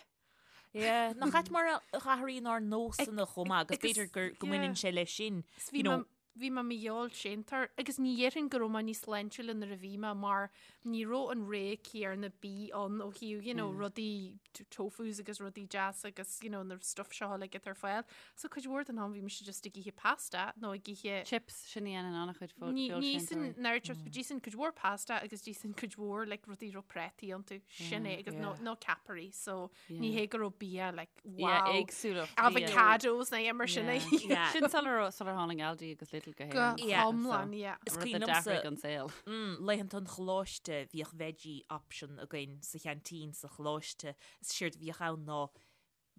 Yeah, nach ait mar a athraíonn ár nósanna chomh maith agus agus- b'fhéidir gur go yeah. mbaineann sé leis sin. Is bhí You know, mé- bhí mé mo fheoilséantóir agus ní dhéarfainn go raibh mé níos sláintiúla nuair a bhí mé mar ní raibh an rogha céanna bídh ann ó thaobh you know rudaí tofus agus rudaí deasa agus you know na stuff seo uilig atá ar fáil. So cuid mhór den am bhí mise just ag ithe pasta nó ag ithe Chips, sin a dhéanann an-chuid fo- Ní ní feoilséantóirí. san náir chips, but d'ithinn cuid mhór pasta agus d'ithinn cuid mhór like rudaí raibh préataí iontu. Sin é agus no no ceapairí so ní hé go raibh bia like Yeah, wow. éagsúlacht bia. Avocados nó mar sin é. Yeah. Sin sular raibh- sular tháinig Aldi agus Lidl go Go hÉirinn. Yeah. hiomlán, yeah. Is Rud a cuimhin liomsa- d'athraigh an saol. Mm, laethanta an choláiste bhíodh veggie option againn sa cheaintín sa choláiste. Is séard a bhíodh ann ná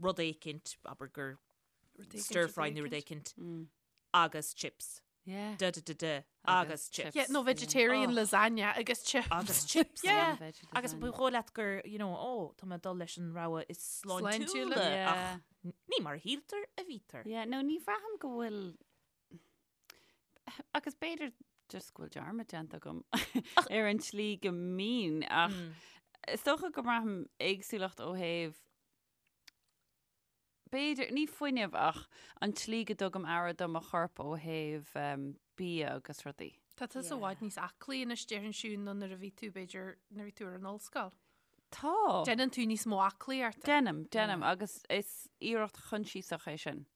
rud éicint, abair gur stir fry nó rud éicint, agus chips. Yeah. Da da da da. Agus Agus chips. chips. Yeah, nó vegetarian Oh. lasagna agus chips. Agus chips. Yeah. yeah. Agus ba dhóigh leat gur, you know, ó, tá mé ag dul leis an rogha is Sláintiúla. sláintiúla Yeah. ach ní mar a shíltear a bhítear. Yeah, no, ní bhraithim go bhfuil agus b'fhéidir just go bhfuil dearmad déanta agam ar an tslí go mbínn ach is dócha go mbraithim éagsúlacht ó thaobh. B'fhéidir, ní fuinneamh ach an tslí go dtugaim aire do mo chorp ó thaobh bia agus rudaí. Tá tusa i bhfad níos aclaí anois déarfainn Siún ná nuair a bhí tú b'fhéidir nuair a bhí tú ar an ollscoil. Tá. Déanann tú níos mó aclaíochta. Déanaim, déanaim agus is iarracht choinsiasach é sin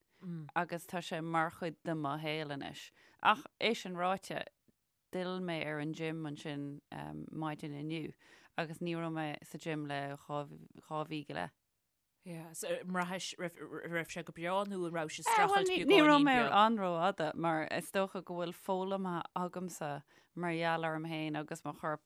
agus tá sé mar chuid de mo shaol anois. Ach é sin ráite, d'fhill mé ar an gym ansin maidin inniu agus ní raibh mé sa gym le 2 mhí go leith. Yeah, so an mbraithis raibh sé go breá nó an raibh sé ag streachailt beagáinín beag? Ní raibh mé an-rófhada mar is dócha go bhfuil foghlamtha agamsa mar gheall orm féin agus mo chorp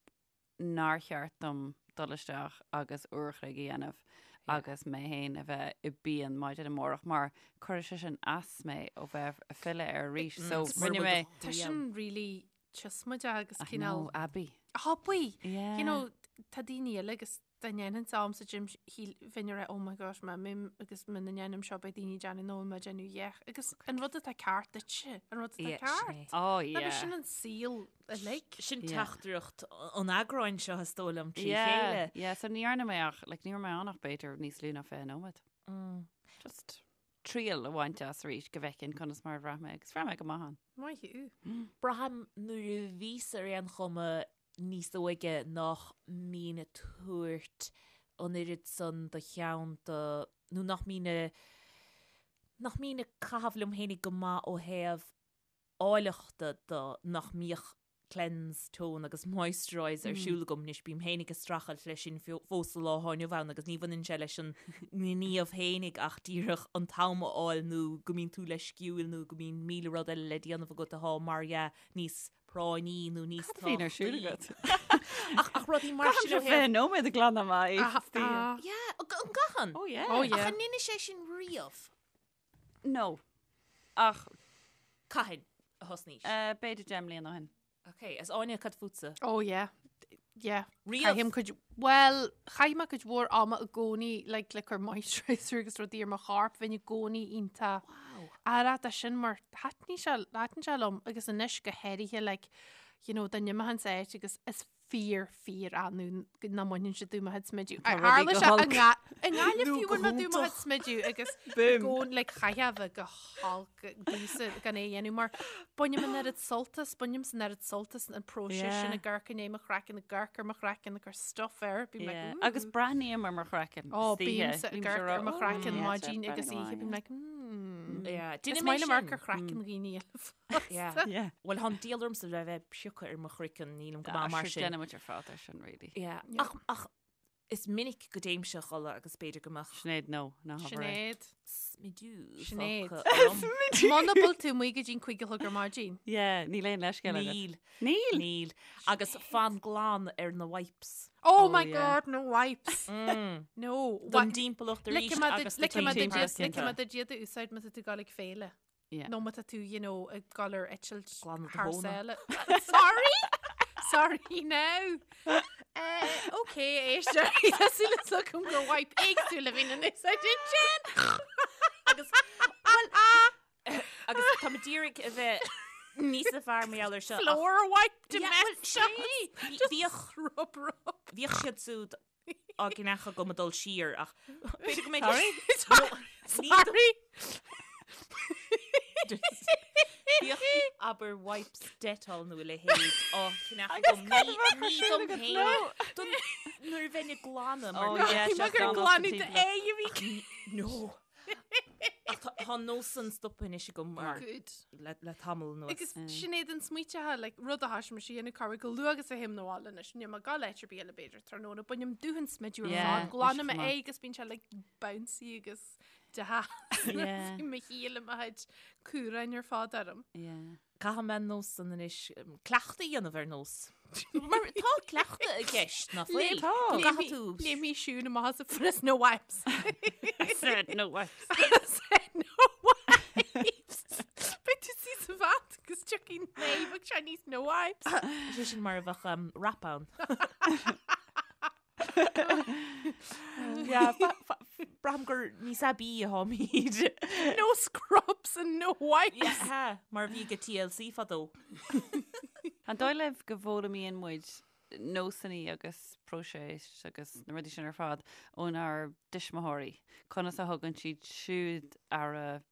nár cheart dom dul isteach agus uair a chloig a dhéanamh agus mé féin a bheith i bpian maidin amárach mar cuirfidh sé sin as mé ó bheith ag filleadh air arís. So rinne mé. Tá sin really tuismideach agus cineál. I know, aibí. Aibí! You know, tá daoine eile agus dá ndéanfainnse am sa gym shíl bheinn ag rá oh my gosh má imím agus muna ndéanaim seo beidh daoine ag déanamh nó mé ag déanamh yeich agus an rud atá ceart duitse an rud atá Yeah, ceart. sin é. Oh yeah. Agus sin an saol uilig. Sin Yeah. teachtaireacht an eagráin seo is dóigh liom trí Yeah, chéile. yeah, so ní dhearna mé ach, like, ní raibh mé ann ach b'fhéidir níos lú ná 20 nóiméad. Just triail a bhaint as arís go bhfeicfinn conas mar a bhraith mé agus bhraith mé go maith ann. Maith thú. Braithim nuair a bhíos ar aon chuma níos óige nach mbínn ag tabhairt an oiread san de cheann do, nó nach mbínn a, nach mbínn ag caitheamh liom fhéinig go maith ó thaobh áilleachta de, nach mbíodh cleanse, tone agus moisturize ar siúl agam anois, bím fhéinig ag streachailt leis sin fós sa lá atá inniu ann agus ní bhaineann sé leis an ngníomh fhéinig ach díreach an t-am a fháil nó go mbíonn tú leisciúil nó go mbíonn 1000 rud eile le déanamh agat atá mar dhea níos práinní nó níos Cad a bhíonn ar siúl agat? Ach ach rudaí mar sin ó Caithim thaobh- 20 nóiméad ag glanadh m'aghaidh. Ah, Yeah, an gcaitheann? Oh yeah. Oh, yeah. Ach an ndeineadh sé sin riamh? No. Ach Cathain a thosnaís? eh, b'fhéidir 10 mbliana ó shin. Ok, is Áine cad fútsa? Oh yeah. Yeah. Riamh? Caithim cuid, bhuel, chaith mé cuid mhór ama i gcónaí like, le cur moisturizer agus rudaí ar mo chorp, bheinn i gcónaí iontach Wow. aireach de sin mar thaitnigh sé, thaitin sé liom agus anois go háirithe like, you know, dá n-imeochainnse áit agus is fíor, fíor annamh nach mbainfinnse díom mo chuid smidiú. Tá rudaí Tharla go sé i holc. nga- i nGaillimh Nó fiú go bhain mé díom mo chuid hiontach. smidiú agus Boom. gón like chaithfeá a bheith go holc domhsa gan é a dhéanamh mar bainim an oiread sult as, bainim an oiread sult as an próiseas Yeah. sin ag amharc i ndiaidh mo chraiceann, ag amharc ar mo chraiceann, ag cur stuff air, bím like, Yeah. "Ooh." Agus breathnaím ar mo chraiceann. Ó, istoíche. bímse ag Bímse amharc ar mo rá, chraiceann "Ooh, maidin yeah, agus oíche, bím breathnaím like, mm. Yeah, Is Déanaim é maith liom amharc sin. ar chraiceann dhaoine eile fosta. Yeah. Yeah. Bhuel, tá an diabhal ormsa le bheith ag piocadh ar mo chraiceann, nílim go Ah, maith mar sure, sin. Déanaimid ar fad é sin, really. Yeah. Yeah. Ach, ach is minic go dtéimse a chodladh agus b'fhéidir go mbeadh Sinéad, no, ná habair é. Sinéad. smidiú Sinéad. fágtha orm. Muna bhfuil tú amuigh go dtí'n 5 a chlog ar maidin. Yeah, níl aon leithscéal agat. Níl. Níl? Níl. Agus fan glan ar na wipes. Oh Oh, my yeah. God, no wipes. No. Don dtimpeallacht arís agus do Ligfidh mé timpeallacht. duit Cinnte. ligfidh mé duit iad a úsáid má tá tú ag dul ag féile. Yeah. Nó má tá tú, you know, ag dul ar eitilt Glanadh do thar thóna. sáile. Sorry! Sorry now! Uh, ok, éisteoirí, tá súil agam gur wipe éagsúil a bhíonn in úsáid ansin! Agus, well, agus tá mé d'iarraidh a bheith níos fearr mar gheall air seo. ach- Floor wipe Yeah, well, domestic! Bhíodh Rub, rub. bhíodh siad siúd á gceannach agam ag dul siar ach b'fhéidir go mbeidh Sorry? Sorry! Bhíodh abair wipes Dettol nó a leithéid á cheannach agam ní ní dom féin don nuair a bheinn ag glanadh mar Oh, go- yeah, Bhí sé mé gur glanadh sa glanadh timpeallacht. d'aghaidh a bhí No. Ach tá tá an nós san stoptha anois agam mar Good. le le tamall anuas. Agus Sinéad an smaoiteatha, like, rud a thoisigh mise a dhéanamh corruair chomh luath agus a théim 'na bhaile anois, níl mé ag gabháil áit ar bith eile b'fhéidir tráthnóna, bainim dúthan smidiú ar Yeah, fad, glanaim is cuma. é agus bíonn sé like bouncy agus deas. Yeah. Bíonn mo shíl i mo chuid cúráin ar fad orm. Yeah. Caithfidh mé an nós san anois cleachtadh a dhéanamh ar nós. Mar tá cleachtadh i gceist, nach bhfuil? Tá. Go gcaithfidh tú. Léimfidh Siún amach as a phrios no wipes. Said no wipes. Said no wipes. Beidh tú suí sa bhat agus tiocfaidh naomh ag sé níos no wipes. Sé sin mar a bheadh um, rap ann. Yeah, braithim gur níos aibí atáimid. No scrubs and no wipes. Yeah, mar a bhí ag TLC fadó. An dóigh libh go bhfoghlaimíonn muid? nósanna agus próiseas agus na rudaí sin ar fad ónár dtuismitheoirí. Conas a thugann siad siúd aire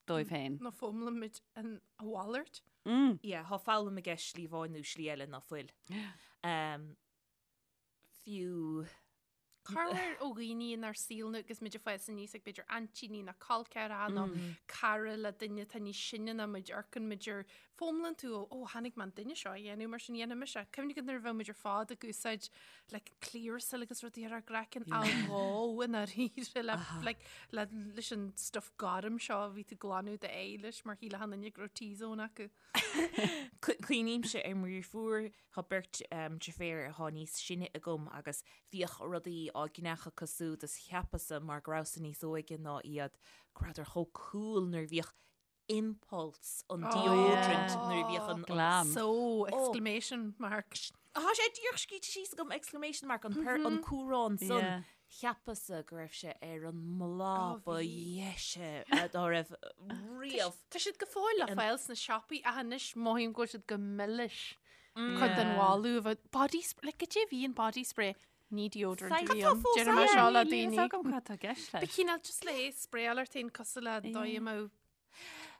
dóibh féin. Nó foghlaimimid an a mhalairt. Mm. Yeah, thá foghlaim i gceist slí amháin nó slí eile ná fuil. Um, fiú Corruair ó dhaoine inár saol nó agus muid ag fás aníos ag b'fhéidir aintíní nó col ceathracha nó cara le duine atá níos sine ná muid amharcann muid ar foghlaimíonn tú ó ó chonaic mé an duine seo a dhéanamh mar sin dhéanfaidh mise. Cuimhnigh go nuair a bheadh muid ar fad ag úsáid like Clearasil agus rudaí ar ár gcraiceann á dhó i ndáiríre le like le leis an stuff gorm seo a bhí tú glanadh d'aghaidh leis mar shíl achan duine go raibh T-zone acu. Cuimhnímse ar mo dheirfiúr, tá beirt deirféar atá níos sine agam agus bhíodh rudaí á gceannach acu súd is cheapas-sa mar go rabhas-sa níos óige ná iad go rabhadar chomh cool nuair a bhíodh Impulse an deodorant nuair a bhíodh an Glam. So, exclamation mark. Tá sé díreach scríte síos agam exclamation mark an per an cumhrán san Yeah. cheapas-sa go raibh sé ar an mbláth Ó, ba bhí. dheise dá raibh riamh. Tá siad go fóill le fáil sna siopaí ach anois mothaím go bhfuil siad go milis. Cuid den Yeah. bholadh a bheith body spray, like goidé a bhí in body spray? Ní deodorant a Cad bhí tá ann. fós Deirim é ann? seo le Níl a fhios daoine. agam cad tá i gceist Ba leis. chineál just le sprayáil ort féin cosúil le dóigh a mbeadh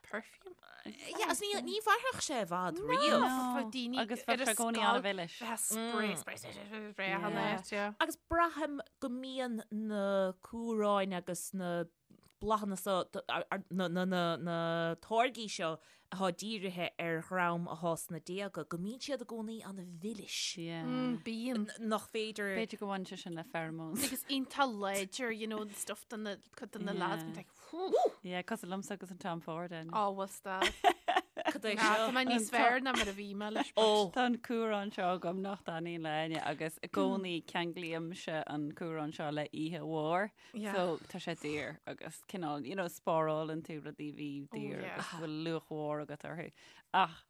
perfume. Yeah, agus ní ní mhairfeadh sé i bhfad riamh. No. Bheadh daoine Agus ar bheadh a sé i gcónaí scoil, an-mhilis. bheadh spray, spray, spray, spray, spray achan Yeah. áit, yeah. Agus braithim go mbíonn na cumhráin agus na bláthanna seo, na, na, na, na táirgí seo atá dírithe ar dhream atá sna déaga, go mbíonn siad i gcónaí an-mhilis. Yeah. Mm, bíonn. Nach féidir. B'fhéidir go mbaineann sé sin le pheromones. Agus iontach láidir, you know, stuff do na, cuid de na lads, Yeah. bíonn like, whew. Yeah, cosúil liomsa agus an Tom Ford ann. Ó, bhuel stop. Cad é Tá seo? mé níos fearr ná mar a bhí mé leis. but- Ó, Tá an cumhrán seo agam nach dtaitníonn le éinne agus i gcónaí ceanglaímse an cumhrán seo le oíche mhór. Yeah. So tá sé daor agus cineál, you know, spárálann tú rudaí a bhí daor yeah. agus bhfuil luach mhór agat orthu. Ach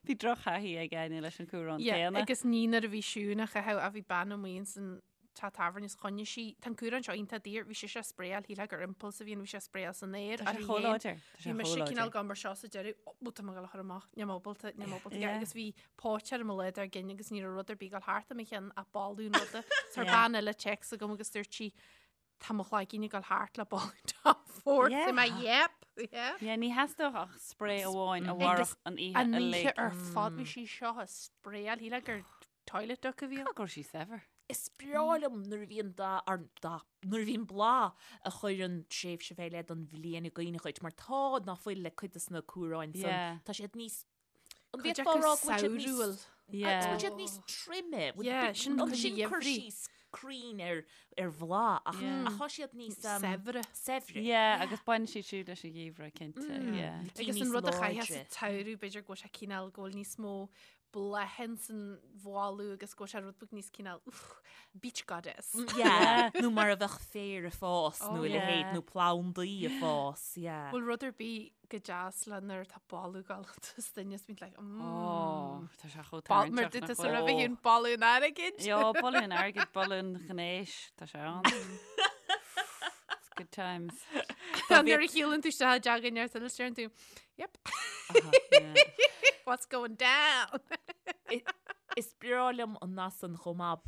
bhí drochthaithí ag Áine leis an cumhrán Yeah, céanna. agus ní nuair a bhí Siún á chaitheamh a bhí bean amuigh ins an teach tábhairne is choinnigh sí, tá an cumhrán seo iontach daor, bhí sise á sprayáil, shílfeá gur Impulse a bhí ann, bhí sé á sprayáil san aer. Tá sé chomh láidir. Tá sé Bhí mise chomh láidir. cineál gan mar seo sa deireadh, ó, tá mé ag dul a chur amach, níl mé ábalta, níl mé ábalta, Yeah. agus bhí póit ar mo leath dár gcionn agus ní raibh rud ar bith ag dul thart i mo cheann ach boladh an ruda. So Yeah. bean eile téacs agam agus dúirt sí, tá mo chloigeann ag dul thart le boladh Tom Ford. Yeah. Yeah. Mé, yep, yeah. Yeah, ní theastódh ach spray amháin a Agus mhairfeadh an oíche An uilig. oíche ar fad bhí sí seo á sprayáil, shílfeá gur toilet duck a bhí ann. Go raibh sí saibhir. Is breá liom nuair a bhíonn dath, ar dath, nuair a bhíonn bláth a chuireann tréimhse fé leith don bhliain i gcuimhne dhuit, mar tá ná fuil le cuid de na cumhráin san, Yeah. tá siad níos, an Cuid bhféadfá acu a rá go bhfuil siad níos, samhrúil. Yeah. bhfuil siad níos troime, bhfuil- Yeah, sin an cuid sin cur gheimhridh. síos cruinn ar, ar bhláth, ach, Yeah. ach tá siad níos um, Saibhre. saibhre. Yeah, agus baineann siad siúd leis an gheimhreadh, cinnte. Yeah. Agus níos an rud a chaithfeá sa láidre. tsamhradh, b'fhéidir go bhfuil sé cineál go bhfuil níos mó bláthanna san bholadh agus go bhfuil sé rud beag níos cineál uff, beach goddess. Yeah, nó mar a bheadh féar ag fás nó Oh, a leithéid yeah. nó plandaí ag fás, yeah. Bhfuil rud ar bith go deas le nuair atá boladh ag dul as duine is bíonn like, mm. Oh, tá sé chomh Bal- Mar tarraingteach dúirt nach tú bhfuil? roimhe féin boladh an airgid. Jo, boladh an airgid, boladh an ghnéis, tá sé ann. It's good times. Nuair a shiúlann tú isteach i dteach in ar deireann tú, yep, Aha, yeah. what's going down? Is breá liom an nath san chomh maith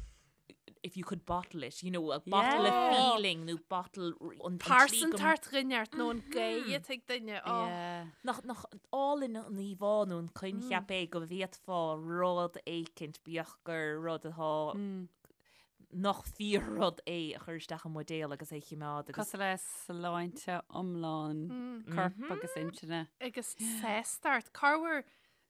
if you could bottle it, you know, a bottle Yeah. a feeling nó bottle an an tslí go- Pearsantacht dhuine nó an ghaoth atá ag duine. Oh. Yeah. Nach nach álainn an íomhá nó an coincheap é go bhféadfá rud éicint bíodh gur rud atá nach fíor-rud é a chur isteach i mbuidéal agus é a choimeád agus Cosúil le sláinte iomlán coirp agus intinne. Agus sástacht. Corruair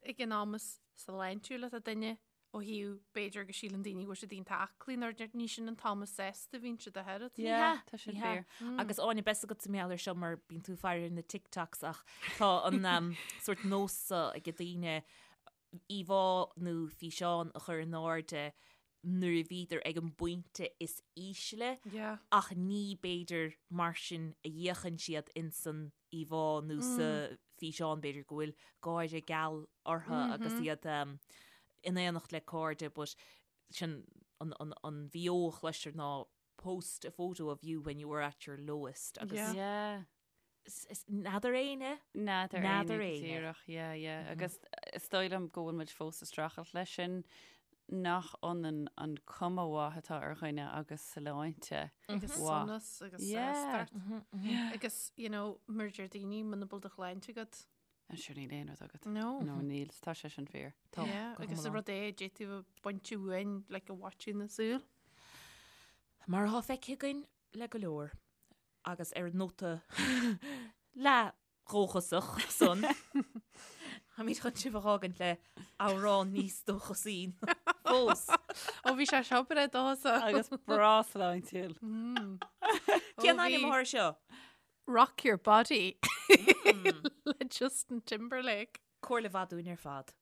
ag an am is sláintiúil atá duine ó thaobh b'fhéidir go síleann daoine go bhfuil siad iontach aclaí nuair ní sin an t-am is sásta a bhíonn siad ach oiread. Yeah, hea, tá sin ní hea. fíor. Agus Áine, beidh a fhios agat mar gheall air seo mar bíonn tú ag faire ar na TikToks ach tá an um, sórt nós seo ag daoine íomhá nó físeán a chur in airde nuair a bhíodar ag an bpointe is ísle Yeah. ach ní b'fhéidir mar sin a fhéachann siad insan íomhá nó sa físeán b'fhéidir go bhfuil gáire geal orthu agus iad um, in éineacht le cairde but sin an, an, an bheo a chloistear ná post a photo of you when you were at your lowest agus Yeah. Yeah. is- is n'fheadar éinne N'fheadar N'fheadar éinne éinne. díreach, yeah, yeah. Agus is dóigh liom go bhfuil muid fós ag streachailt leis sin. nach ionann an cuma mhaith atá ar dhuine agus sláinte Agus mhaith. sonas agus Yeah. sástacht. Agus, you know, mar a deir daoine, muna bhfuil do shláinte agat. An sure níl aon rud agat. No. No, níl, tá sé sin fíor. Tá, Yeah, go agus an hiomlán. rud é, d'fhéadfadh a baint uainn, like, a mhaitiú na súl. Mar atá feicthe againn le go leor, agus ar an nóta leath-dhóchasach san, táimid chun sibh a fhágaint le amhrán níos dóchasaí fós. Ó bhí sé seo breá dóchasach. Agus breá sláintiúil. Cén ainm atá air seo? Rock Your Body le Justin Timberlake. Comhairle mhaith dúinn ar fad.